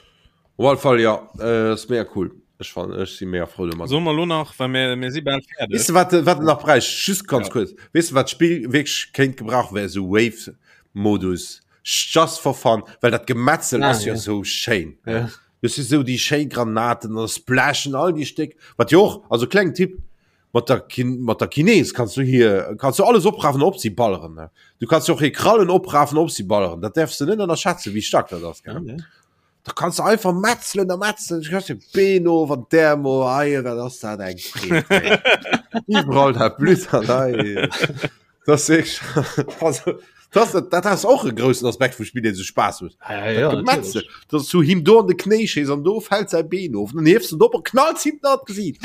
Op alle Fall ja, äh, ass mega cool. Ech fan ech si mega frou domat. Solle mer lo nach, well mir mir si bal fäerdeg. Weess de wat wat en nach bräicht? Just ganz Ja. kuerz. Weess de wat d'Spill wierklech kéint gebrauchen, wär esou Wave-Modus. Just for fun, well dat Gemetzel Ah, ass jo ja. sou schéin. Ja. Du si sou déi schéi Granaten an splashen all déi Stéck. Wat jo och, also kleng Tipp, mat der Kin mat der Kines kanns du hier kanns du alles oprafen op si balleren. Ne? Du kanns jo och hir Krallen oprafen op si balleren. Dat däerfs du net ënnerschätzen, wéi staark dat ass. Gell? Ja, ja. Da kanns du einfach metzelen a metzelen. Du kannst de Been of an d'Äerm of. Ei, wat ass dat eng Freed. ey. Iwwerall dat Blutt an ei. Das ist also, das, dat ass och e groussen Aspekt vum Spill, deen sou Spaass huet. Ja, ja, ja, Dat Gemetzel, natierlech. dass du him do an de Knéi schéiss an do fält säi Been of, dann hiefs du en op a knalls him an d'Gesiit.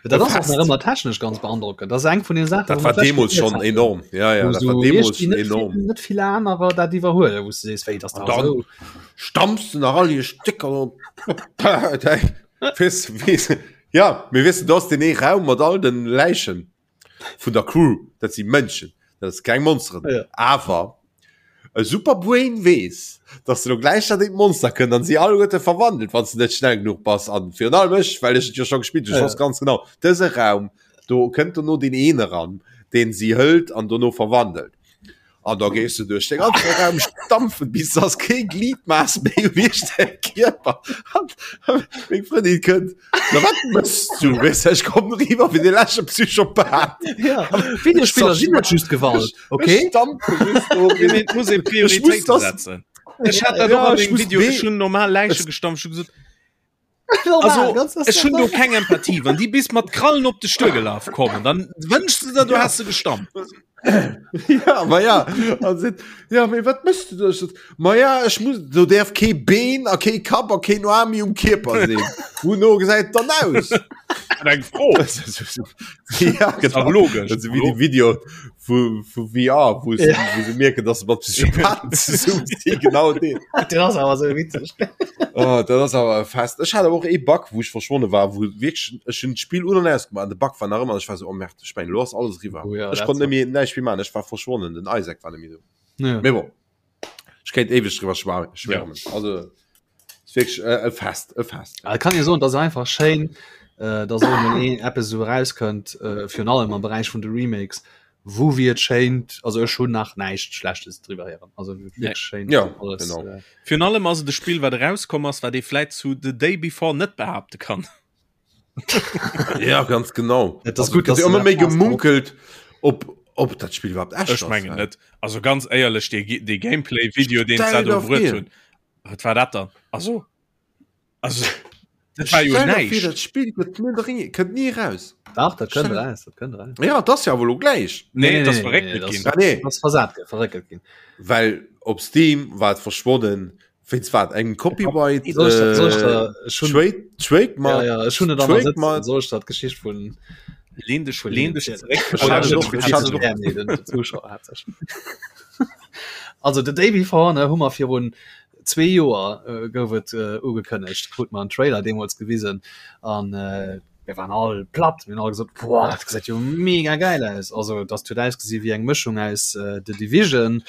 Dat ass och Fest. nach ëmmer technesch ganz beandrockend. Dat ass eng vun den Saachen, Dat wou war mer d'lescht deemools gezielt schonn haten. enorm. Ja, ja, Wou dat war sou deemools iergendwéi schon net vill, enorm. net vill anerer dat iwwerhuelen, wou s du sees, wéi, dass An da dann esou. stampfst du nach all hir Stécker op. Weess, weess, ja, mee weess du, do ass deen ee Raum mat all den Läichen vun der Crew, dat si Mënschen, dat ass keng Monsteren. Ja. Awer e Superbrain weess, dass elo gläich dat eent Monster kënnt an si alleguerte verwandelt, wann s de net schnell genuch bass. An virun allem ech, well ech et jo scho gespillt hunn, ech Ja. wosst ganz genau, dëse Raum, do kënnt dono deen een eran, deen si hëlt an dono verwandelt. An da gees du duerch de ganze Raum stampfen, bis dass kee Gliedmaß méi um iech Kierper. An meng Frëndin kënnt, Na wat mëss du? Weess ech komm riwwer wéi de leschte Psychopath. Ja, Videospiller sinn net just Gewalt, okay? Ech stampfe just do. Ja, mee et muss ee Prioritéite das- setzen. Ech hat dat Ja, och an ech dem muss Video, B- ech hunn normal Läiche gestampft, ech hu gesot, Also, ech hunn do keng Empathie. Wann déi bis mat Krallen op dech duergelaf kommen, dann wënschs du der, du häss se gestammt. Ja, ma ja. An seet, ja, mee wat mëss du da? Ech sot, ma ja, ech muss, do däerf kee Been a kee Kapp a keen Aarm méi um Kierper sinn. Wouno gesäit et dann aus? Eng Fro. Ja, genau. Logesch. Dat ass wéi de Video vu, vu VR, wou se, Ja. wou se mierken, dass se mat Psychopathen zesummen sinn. Genau deen. Dat ass awer sou witzeg. Oh, dat ass awer e Fest. Ech hat awer och ee Bug, wou ech verschwonne war, wou wierklech, ech hunn d'Spill un an ausgemaach an de Bug war nach ëmmer an ech war sou, oh merde, ech mengen, elo ass alles eriwwer. Oh ja, Ech dat konnt war- net méi, näischt méi maachen, ech war verschwonnen, den Isaac war net méi do. Ja. Mee bon, ech kéint éiweg driwwer schwa- schwärmen. Also, ist wierklech e, e Fest, e Fest. Et kann ee soen, et ass einfach schéin, äh, dass och emol een eppes esou erauskënnt, äh, virun allem am Beräich vun de Remakes, wou wéi et schéint, also ech hunn nach näischt Schlechtes driwwer héieren, also wierklech schéin Ja, alles. genau. Äh, Virun allem ass et e Spill, wat erauskomm ass, wat ee vläit zu The Day Before net behaapte kann. Ja, ganz genau. Et ass gutt, dass dass ëmmer du méi dat hast, gemunkelt, ob, ob dat Spill iwwerhaapt echt Ech ass. mengen net. Also ganz éierlech, dee, dee Gameplay-Video, deen Stell se do dir bruet vir. hunn, wat war dat dann? Also, also dat war jo Stell dir vir, näischt. dat Spill gëtt net eri- kënnt ni raus. Dach, dat kënnt Stell- raus, dat kënnt raus. Ja, dat ass ja awer elo gläich. Nee, dat ass nee, verréckelt nee, dat ginn. Ah, nee. Dat ass versat ginn, verréckelt ginn. Well op Steam war et verschwonnen wéinst wat engem Copyright Soll ech dat, soll ech äh, da, ech hunn, Trade, Trademark. ja, ja, ech hunn et an der Trademark. Sëtzen, soll ech dat d'Geschicht vun Lehn dech, vun lehn dech hinnen zeréck. Ech hat et och- ech hat et och- Ja, nee, den den Zuschauer hat sech. Also The Day Before ne, hu mer virun zwee Joer äh, gouf et äh, ugekënnegt, krut mer en Trailer deemools gewisen an äh, mir waren all platt, mir hunn all gesot, boah, dat gesäit jo mega geil aus. Also dat huet ausgesi wéi eng Mëschung aus äh, The Division,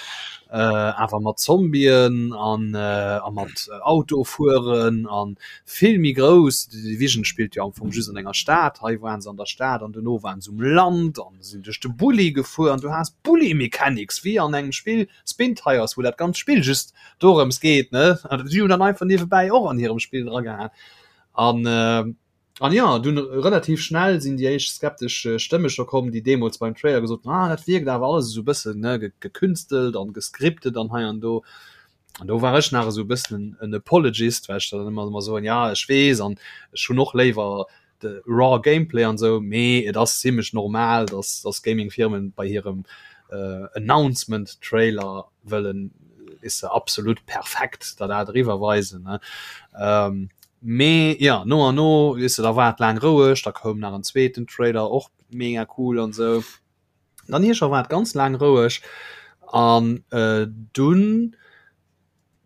äh, awer mat Zombien an, äh, a mat Autofueren an vill méi grouss. The Division spillt jo am Fong just an enger Stad, hei waren se an der Stad an dono waren se um Land an sinn duerch de Bulli gefuer an du has Bulli-Mechanics wéi an engem Spill Spintires, wou dat ganzt Spill just dorëms geet, ne? An si hunn dann einfach niewebäi och an hirem Spill dragehaen. An äh, an ja, dunn relativ schnell sinn déi éischt skeptesch Stëmme scho komm, déi deemools beim Trailer gesot hunn, ah, dat wierkt awer alles esou e bëssen, ne, gekünstelt an gescriptet an hei an do. An do war ech nach esou e bëssen en Apologist, well ech dann ëmmer ëmmer soen, ja, ech weess an ech hunn och léiwer de raw Gameplay an esou, mee et ass zimlech normal, dass dass Gaming-Firmen bei hirem Announcement-Trailer wëllen, weess de, absolut perfekt der dat eriwwer weisen, ne. Mee jo, no an no, weess de, da war et laang roueg, da koum nach en zweeten Trailer, och mega cool an esou. Dann hir scho war et ganz laang roueg an dunn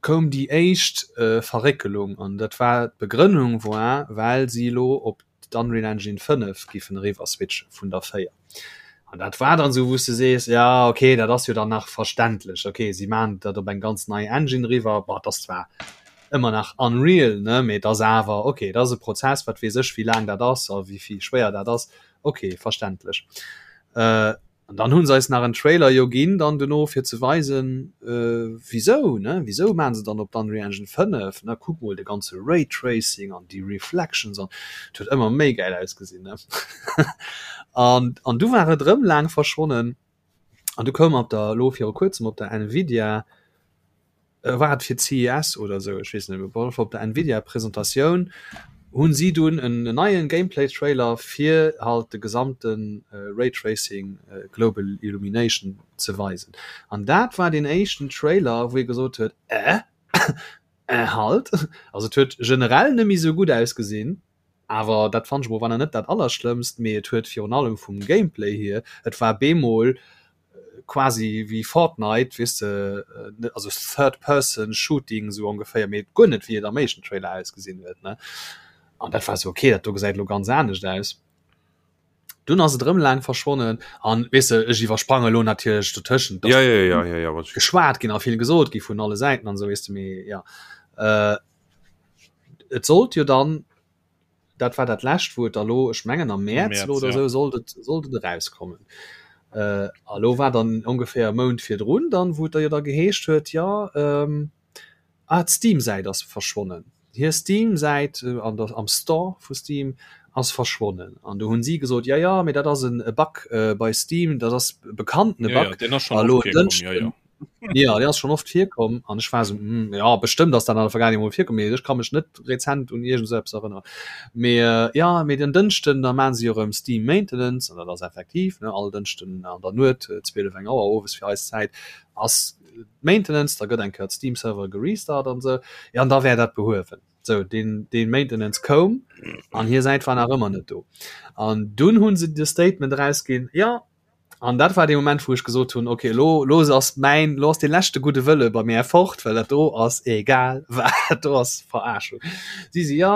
koum déi éischt Verréckelung an dat war d'Begrënnung war, well si elo op d'Unreal Engine 5 giffen eriwwer switche vun der 4. An dat war dann esou wou s de sees, ja okay, dat ass jo dann nach verständlech, okay si maachen dat op eng ganz nei Engine eriwwer, bon et ass zwar ëmmer nach Unreal ne, mee et ass awer okay, et ass e Prozess, wat weess ech wéi laang dat ass a wéi vill schwéier dat ass, okay verständlech. An dann hu se eis nach en Trailer jo ginn dann dono fir ze weisen, wisou, ne, wisou maachen se dann op d'Unreal Engine 5, ne, kuck mol de ganze Raytracing an déi Reflections an et huet ëmmer méi gäil ausgesinn, ne. An an du war et erëm laang verschwonnen an du koum op der, elo viru kuerzem op der Nvidia, war et fir d'CES oder esou, ech weess net méi, op alle Fall op der Nvidia Presentatioun hunn si dunn en neien Gameplay Trailer fir halt de gesamte Ray Tracing Global Illumination ze weisen an dat war deen éischten Trailer wou ee gesot huet, äh, äh halt, also et huet generell net méi esou gutt ausgesinn, awer dat fannt ech mol war nach net dat allerschlëmmst, mee et huet virun allem vum Gameplay hier, et war bemol quasi wéi Fortnite, weess de, also Third Person Shooting esou ongeféier, mee guer net wéi et am éischten Trailer ausgesinn huet, ne. An dat war sou, okay, dat do gesäit elo ganz anescht aus. Dunn ass et erëm laang verschwonnen an weess de, ech iwwersprange lo natierlech dotëschent, dass ja, ja, ja, ja, ja, geschwat ginn a vill gesot gi vun alle Säiten an esou, weess de, mee ja. Äh, et sollt jo dann, dat war dat lescht, wou et da lo, ech mengen am Mäerz lo oder esou, sollt et, sollt et erauskommen. Äh, a lo war dann ongeféier e Mount virdrun dann, wou et da jo da geheescht huet, jo, ähm, Ah, d'Steam-Säit ass verschwonnen. Hir Steam-Säit an der, am Store vu Steam ass verschwonnen. An do hunn si gesot, ja, ja, mee dat ass en e Bug bei Steam, dat ass bekannt e Ja, ja, Bug. deen ass schonn A oft lo en virkomm, ja, Dënschden, ja. ja, deen ass schonn oft virkomm. An ech war esou, hm, ja, bestëmmt ass dat an der Vergaangenheet emol virkomm, mee ech ka mech net rezent un iergend esou eppes erënneren. Mee ja, mee den Dënschden, da maachen si erëm Steam Maintenance, an dat ass effektiv, ne, all Dënschden an der Nuet, 12, eng Auer owes fir eis Zäit, ass Maintenance, da gëtt eng Kéier d'Steam Server gerestart an esou, jo an da wär dat behuewen. Sou, deen, deen Maintenance koum an hir Säit war nach ëmmer net do. An dunn hu se de Statement erausginn, jo, an dat war dee Moment wou ech gesot hunn, okay, elo, elo ass mäin, elo ass dee leschte gudde Wëlle bei mär fort, well dat do ass egal wat, dat do ass Verarschung. Si si, jo,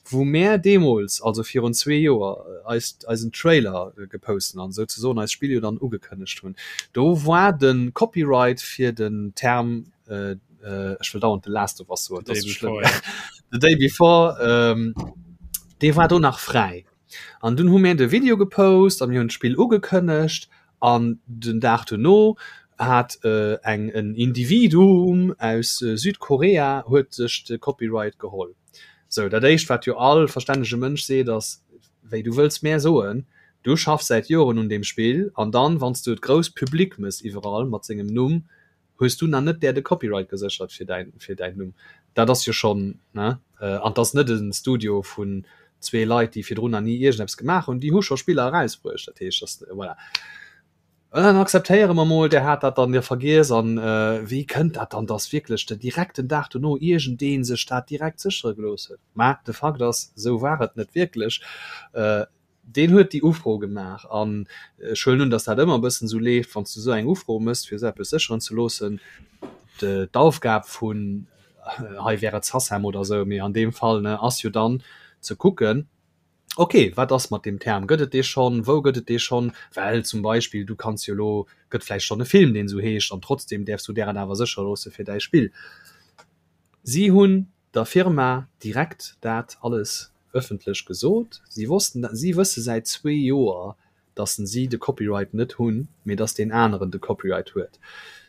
Wou mär deemools, also virun zwee Joer, eis eisen Trailer geposten an souzesoen eist Spill jo dann ugekënnegt hunn, do war de Copyright fir den Term, ech wëll dauernd The Last of Us soen, dat ass sou schlëmm, The Day Before, dee war do nach fräi. An dunn hu mär de Video gepost a mir hunn d'Spill ugekënnegt An den Dag dono hat eng en Individuum aus Südkorea huet sech de Copyright geholl. Sou, dat éischt wat jo all verstännege Mënsch seet ass, wéi du wëlls mär soen, du schaffs säit Joren un deem Spill an dann wann s du et grouss public mëss iwwerall mat sengem Numm, Hues du nach net där de Copyright geséchert fir däin fir däin Numm? Dat ass jo schonn, ne? An 't ass net e Studio vun zwee Leit, déi virdrun nach ni iergendeppes gemaach hunn, déi hu scho Spiller erausbruecht. Dat heescht, dass, voilà. An dann akzeptéiere mer mol, där hat dat dann jo vergiess. An wéi kënnt dat dann, dass wierklech de direkt den Dag dono iergendee sech dat direkt séchere gelooss huet? Mä de Fakt ass, esou war et net wierklech. Deen huet déi Ufro gemaach an ech huelen un, datt dat ëmmer e bëssen esou leeft, wann s du esou eng Ufro méchs, fir esou eppes sécheren ze loossen. D'Aufgab vun, hei wär et SACEM oder esou, mee an deem Fall, ne, ass jo dann ze kucken, okay, wat ass mat deem Term, gëtt et dee schonn, wou gëtt et dee schonn? Well zum Beispill, du kanns jo elo, gëtt vläicht schonn e Film, deen esou heescht an trotzdem däerfs du där et awer séchere loosse fir däi Spill. Si hunn der Firma direkt dat alles ëffentlech gesot. Si wossten, si wësse säit zwee Joer, datt si de Copyright net hunn, mee datt deen aneren de Copyright huet.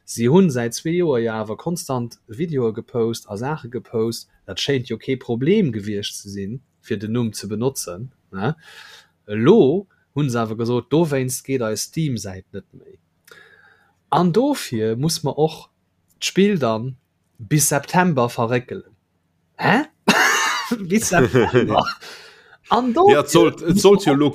Si hunn säit zwee Joer jo awer konstant Videoe gepost a Saache gepost. Dat schéint jo kee Problem gewiescht ze sinn, fir den Numm ze benotzen. Elo hu se awer gesot, dowéinst geet eis Steam-Säit net méi. An dofir muss mer och d'Spill dann bis September verréckelen. Hä? Bis September? An do Ja, et sollt, et sollt jo lo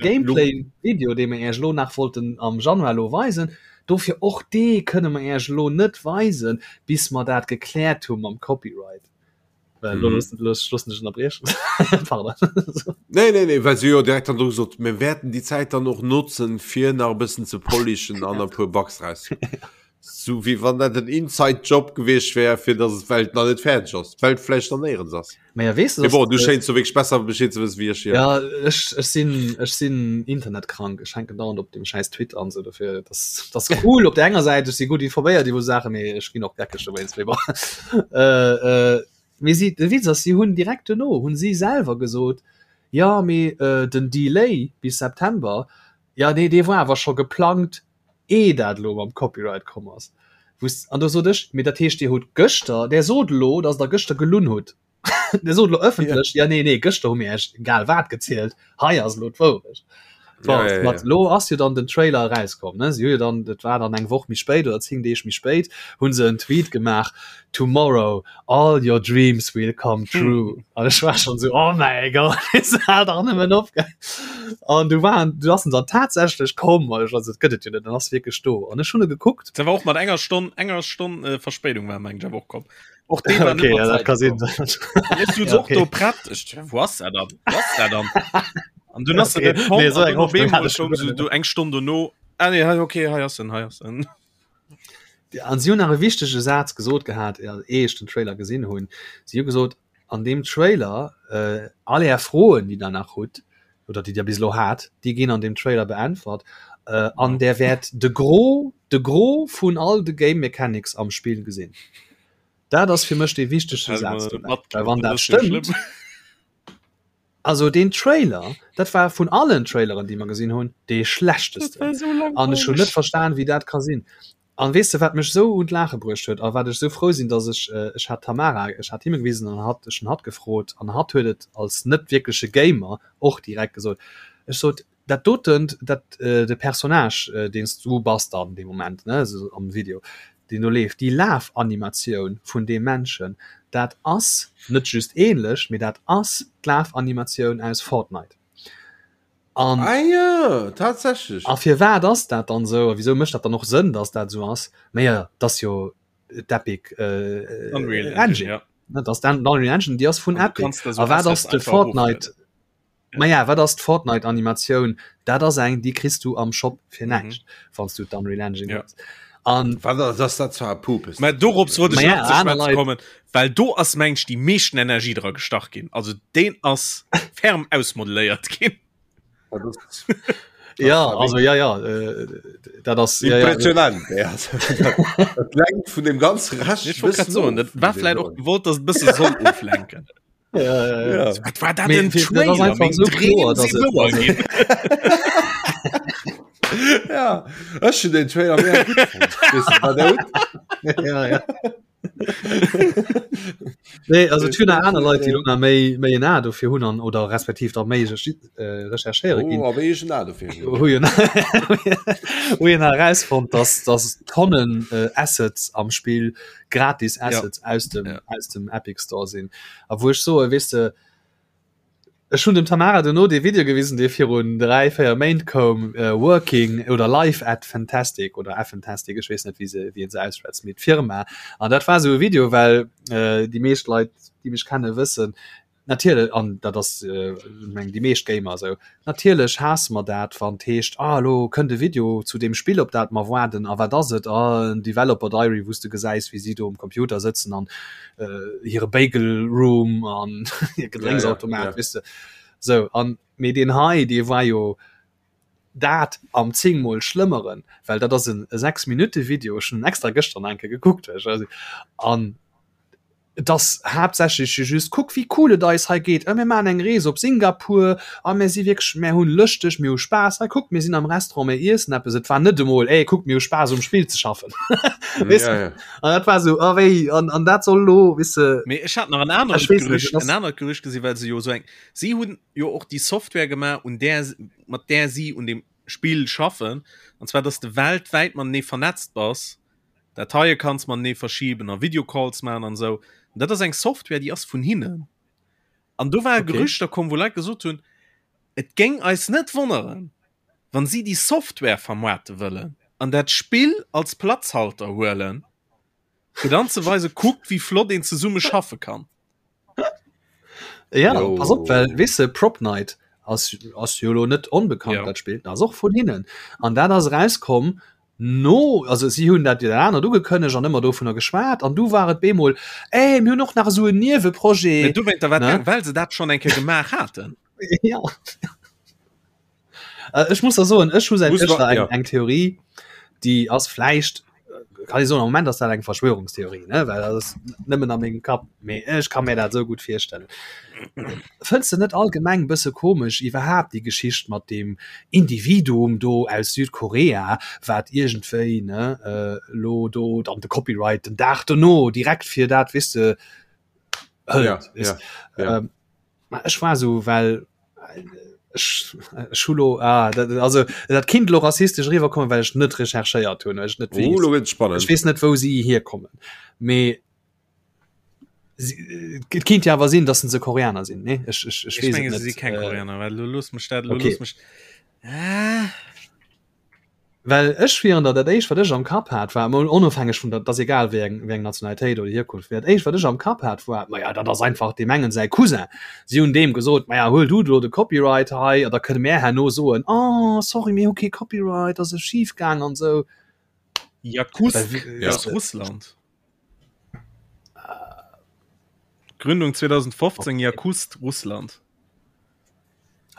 Gameplay-Video, dee mir Iech elo nach wollten am Januar elo weisen, dofir och dee kënne mer Iech elo net weisen, bis mer dat gekläert hu mam Copyright. Well elo loossen loossen ech ënnerbriechen. Pardon. Nee, nee, nee, well se jo direkt dann do gesot, mir wäerten déi Zäit dann och notzen, fir nach e bëssen ze polishen an e puer Bugs raus. Sou wéi wann dat en Inside Job gewiescht wär, fir datt et d'Welt nach net fäerdeg ass, d'Welt vläicht nach néierens ass. Ma ja, weess du, Mee bon, du schéins jo wierklech besser Bescheed ze wëssen wéi ech hier. Ja, ech, ech sinn, ech sinn internetkrank. Ech hänken dauernd op dem schäiss Twitter an sou dofir. Dat ass cool op der enger Säit, ech si gutt informéiert iwwer Saachen, mee ech ginn och geckeg dowéinst. Mee bon. Äh, äh, mee si, de Witz ass, si hunn direkt duerno hunn si selwer gesot, jo, mee den Delay bis September, jo, nee, dee war awer scho geplangt Ee dat elo mam Copyright komm ass, wou s, an do sot ech, mee dat heescht Dir hutt gëschter, Der sot elo, datt Der gëschter gelunn hutt, Der sot elo ëffentlech, ja nee, nee, gëschter hu mir Iech egal wat gezielt, hei ass elo d'Wourecht. Bon, Ja, ja, mat ja. elo ass jo dann den Trailer erauskomm, ne, si hu jo dann, dat war dann eng Woch méi spéit oder 10 Deeg méi spéit, hu se en Tweet gemaach, Tomorrow all your dreams will come true. An ech war schon so, oh mäi Gott, hal dach nëmmen op. An du waren, du ass en dann tatsächlech komm, an ech war so, dat gëtt et jo net, en ass wierklech do. An ech hunn e gekuckt. Dat war och mat enger Stonn, enger Stonn äh, Verspéidung war meng ech awer och komm. Och dee war net Okay, mat ja, dat Zäit ka sinn. komm. An ech sot Ja, och okay. do prett, ech, wou ass dat dann? Wou ass dat dann? An dunn ass Okay. en net komm, Nee, so an eng dunn op Hoffnung hat eemol ech koum schon se guer do eng Stonn dono, ah nee, hei, okay, hei ass en, hei ass en. An si hunn nach e wichtege Saz gesot gehat, eh ech den Trailer gesinn hunn. Si hu gesot. An deem Trailer, all är Froen, déi der nach hutt oder déi der bis elo hat, déi ginn an deem Trailer beäntwert. An där wäert de Gros, de Gros vun all de Game Mechanics am Spill gesinn. Dat ass fir mech dee wichtegste Saz dobäi. Well wann dat stëmmt, also deen Trailer, dat war vun allen Traileren, déi mer gesinn hunn, dee schlechtesten. An ech hunn net verstan, wéi dat ka sinn. An weess de wat mech esou un d'Laache bruecht huet a wat ech esou frou sinn, dass ech, ech hat d'Tamara, ech hat him e gewisen an hatt, ech hunn hatt gefrot an hatt huet et als net wierkleche Gamer och direkt gesot. Ech sot, dat doten, dat, de Personnage, deen s du bass dann dee Moment, ne, esou am Video, deen do leeft, déi Lafanimatioun vun deem Männchen, dat ass net just ähnlech, mee dat ass d'Lafanimatioun aus Fortnite. An, ah ja, tatsächlich. A firwat ass dat dann esou? A wisou mécht dat dann och Sënn, dass dat esou ass? Mä jo, dat ass jo d'Epic äh, Unreal Engine, Engine. Ja. Dat ass d'Unreal Engine, déi ass vun Epic. A wat ass de Fortnite? Ja. Ma ja, wat ass d'Fortnite-Animatioun? Dat ass eng, déi kriss du am Shop fir mhm. näischt, mm -hmm. wann du d'Unreal Engine ja. hues. An wat ass dat zwar Pupes? Mä dorops wollt ech nach ze schwätzen kommen, well do ass mengen ech déi meeschten Energie dra gestach ginn. Also deen ass ferm ausmodelléiert ginn. Ja, also ja ja äh, dat ass impressionant ja, ja. Dat lenkt vun dem ganze Rescht Ich wollt grad soen, dat war vläit och gewollt, dass et bësse soll oflenken. Ja, ja, ja. Ja. Wat war dat en Trailer? Meng Dreem si wouer ginn. Ja, ech hun den Trailer mega gutt fonnt. Weess du, wat der hutt? Ja, ja. Nee, also et hunn nach aner Leit, déi lo nach méi, méi en A dofir hunn an oder respektiv da méi äh, recherchéiere ginn. Oh, a wéi ech en A dofir hunn. Hu jo hu jo nach erausfonnt, dass, dass Tonnen äh, Assets am Spill gratis Assets ja. aus dem ja. aus dem Epic Store sinn. A wou ech soe weess de, ech hunn dem Tamara duerno dee Video gewisen, dee virun 3, 4 Méint koum, äh, Working oder Live at Fantastic oder Fantastic, ech weess net wéi se wéi een se ausschwätzt, mee d'Firma. An dat war esou e Video, well äh, déi meescht Leit, déi mech kenne wëssen, Natierlech, an dat ass meng déi meescht Gamer esou, natierlech haasse mer dat, wann et heescht, ah elo kënnt e Video zu deem Spill op dat mer waarden, a wat ass et? Ah en Developer Diary wou s de gesäis wéi si do um Computer sëtzen an hire Bagel Room an hir Gedrénksautomat, weess de sou. An mee deen hei dee war jo dat am zéngmol schlëmmeren, well dat ass en 6 Minutte Video, ech hunn en extra gëschter nach eng Kéier gekuckt, an Et ass haaptsächlech jo just, kuck wéi cool et eis hei geet, mir maachen eng Rees op Singapur a mir si wierklech, mir hunn lëschteg, mir hu Spaass, hei kuckt mir sinn am Restaurant, mir iessen eppes. Et war net emol, ey kuckt mir hu Spaass um Spill ze schaffen. Weess de? Ja, ja. An dat war esou, oh wéi, an, an dat soll elo, weess de. Mee ech hat nach en anert Ech weess net, Gerücht, et ass. en anert Gerücht gesinn, well se jo esou eng, si hunn jo och déi Software gemaach, un där, mat där si un deem Spill schaffen, an zwar, dass de weltwäit matenee vernetzt bass Dateie kanns matenee verschiben a Videocalls maachen an esou. An dat ass eng Software, déi ass vun hinnen. An do ware Okay. Gerüchter komm, wou Leit gesot hunn, et géing eis net wonneren, wann si déi Software vermaarte wëllen an dat Spill als Platzhalter huelen, fir dann ze weisen, kuckt wéi flott een zesumme schaffe kann. Ja, Jo. pass op, well weess de, Prop Night ass, ass jo lo net onbekannt, Ja. dat Spill, dat ass och vun hinnen. An dat ass erauskomm no, also si hunn dat jo dat anert ugekënnegt an ëmmer dovunner geschwat an du war et bemol, ey, mir hunn och nach esou en Mee Nieweprojet. dowéinter war Ne? et, well se dat schonn eng Kéier gemaach haten. Ja. Äh, ech muss da soen, ech hu säit Muss gëschter wa- eng, ja. eng Theorie, déi ass vläicht, äh, kann ich soen, am Moment ass dat eng Verschwörungstheorie, ne? well dat ass nëmmen a mengem Kapp, mee ech ka mir dat esou gutt virstellen. Fënns de net allgemeng bësse komesch iwwerhaapt déi Geschicht mat deem Individuum do aus Südkorea, wat iergendwéi, ne, äh, lo do dann de Copyright den Dag dono direkt fir dat, weess de, hëlt, Ja, weess ja, ja. Ähm, Ma ech war sou well ech ech hu lo ah, dat, also dat kinnt lo rassistesch eriwwerkommen, well ech net recherchéiert hunn, well ech net Oh, weess. lo gëtt spannend. Ech weess net wou si hierkommen. Mee si, et kinnt jo awer sinn, datt se Koreaner sinn, nee? Ech, ech, ech Ech weess et menge se net. si keng Äh, Koreaner, well lo looss mech dat, lo okay. looss mech ah. Well ech wieren der, dat éischt wat ech am Kapp hat war, mol onofhängeg vun der, et ass egal wéi eng, wéi eng Nationalitéit oder Hierkunft, mee dat éischt wat ech am Kapp hat war, maja dat ass einfach deem engen säi Cousin. Si hunn deem gesot, maja huel du elo de Copyright hei a da kënne mär herno soen, oh sorry mir hu kee Copyright, ass e schif gaang an esou. Jakutsk Well, aus Russland. Gründung 2015 Jakust Russland.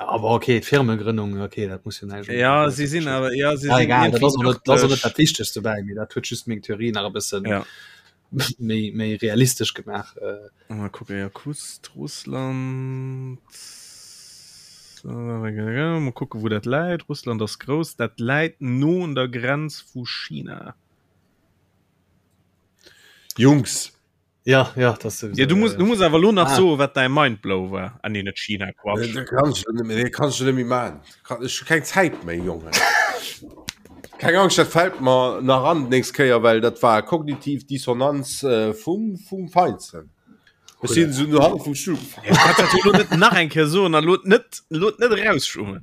Aber okay Firmegrënnung okay dat muss jo näischt Ja si sinn awer ja si ja, sinn egal dat ass irgendwie och net dat ass och net örtlech. dat Wichtegst dobäi mee dat huet just meng Theorie nach e bëssen Ja. méi méi realistesch gemaach äh. Mal kucken Jakust Russland Mal kucken wou dat läit Russland ass grouss dat läit no un der Grenz vu China. Jungs Ja, ja, das ja, du musst, du musst awer lo nach ah. so wat dein Mindblow war an ah, net China Quatsch. Nee, kannst du net, kannst du net méi man ich keng Zäit méi Junge. Keng Angst dat fällt mer nach an nächst Kéier well dat war kognitiv Dissonanz äh, vum vum Feinsten. Ech sinn so no vum Stuhl. Ja, net nach eng Kéier so an lot net lot net rausschummen.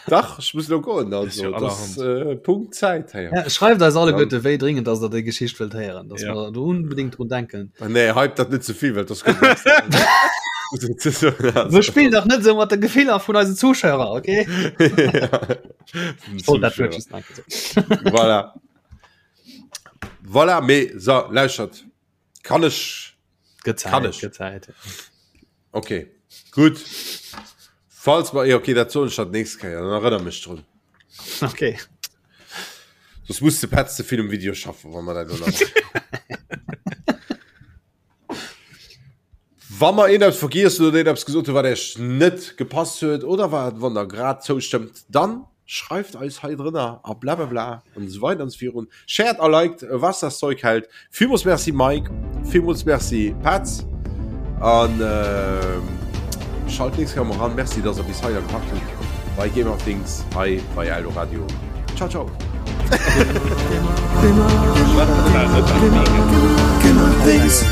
Dach ech muss lo goen also ja das, äh, Punkt Zäit hey. Ja, schreift eis alleguerte wéi dringend dass der déi Geschicht wëllt héieren, dass ja. mer do unbedingt drun denken. Ah, nee hype dat net zevill well das Wir spillen doch net sou mat de Gefiller vun eisen Zuschauer, okay? Oh, dat huet just nach gesot. Voilà. Voilà, mee so lauschert kann ech Gëtt Kann Zäit, ech. gëtt Zäit. Okay, gutt. Falls mer, okay, dat soen ech dann d'nächst Kéier, dann erënner mech drun. Okay. Soss muss de Petz ze vill um Video schaffen, wa mer dat elo nach. Wa mer een eppes vergiess hunn oder een eppes gesot hunn, wat Iech net gepasst huet oder wat, wann Der grad zoustëmmt, dann schreift eis hei drënner a blablabla an esou weider an esou virun. Shared a liked, was das Zeug hält. Villmools Merci Mike, villmools Merci Petz an äh, schalt nächst Kéier mol ran. Merci, dass der bis hei gepackt hutt bei Game of Things hei bei Eldoradio. Ciao, ciao. Game of Things.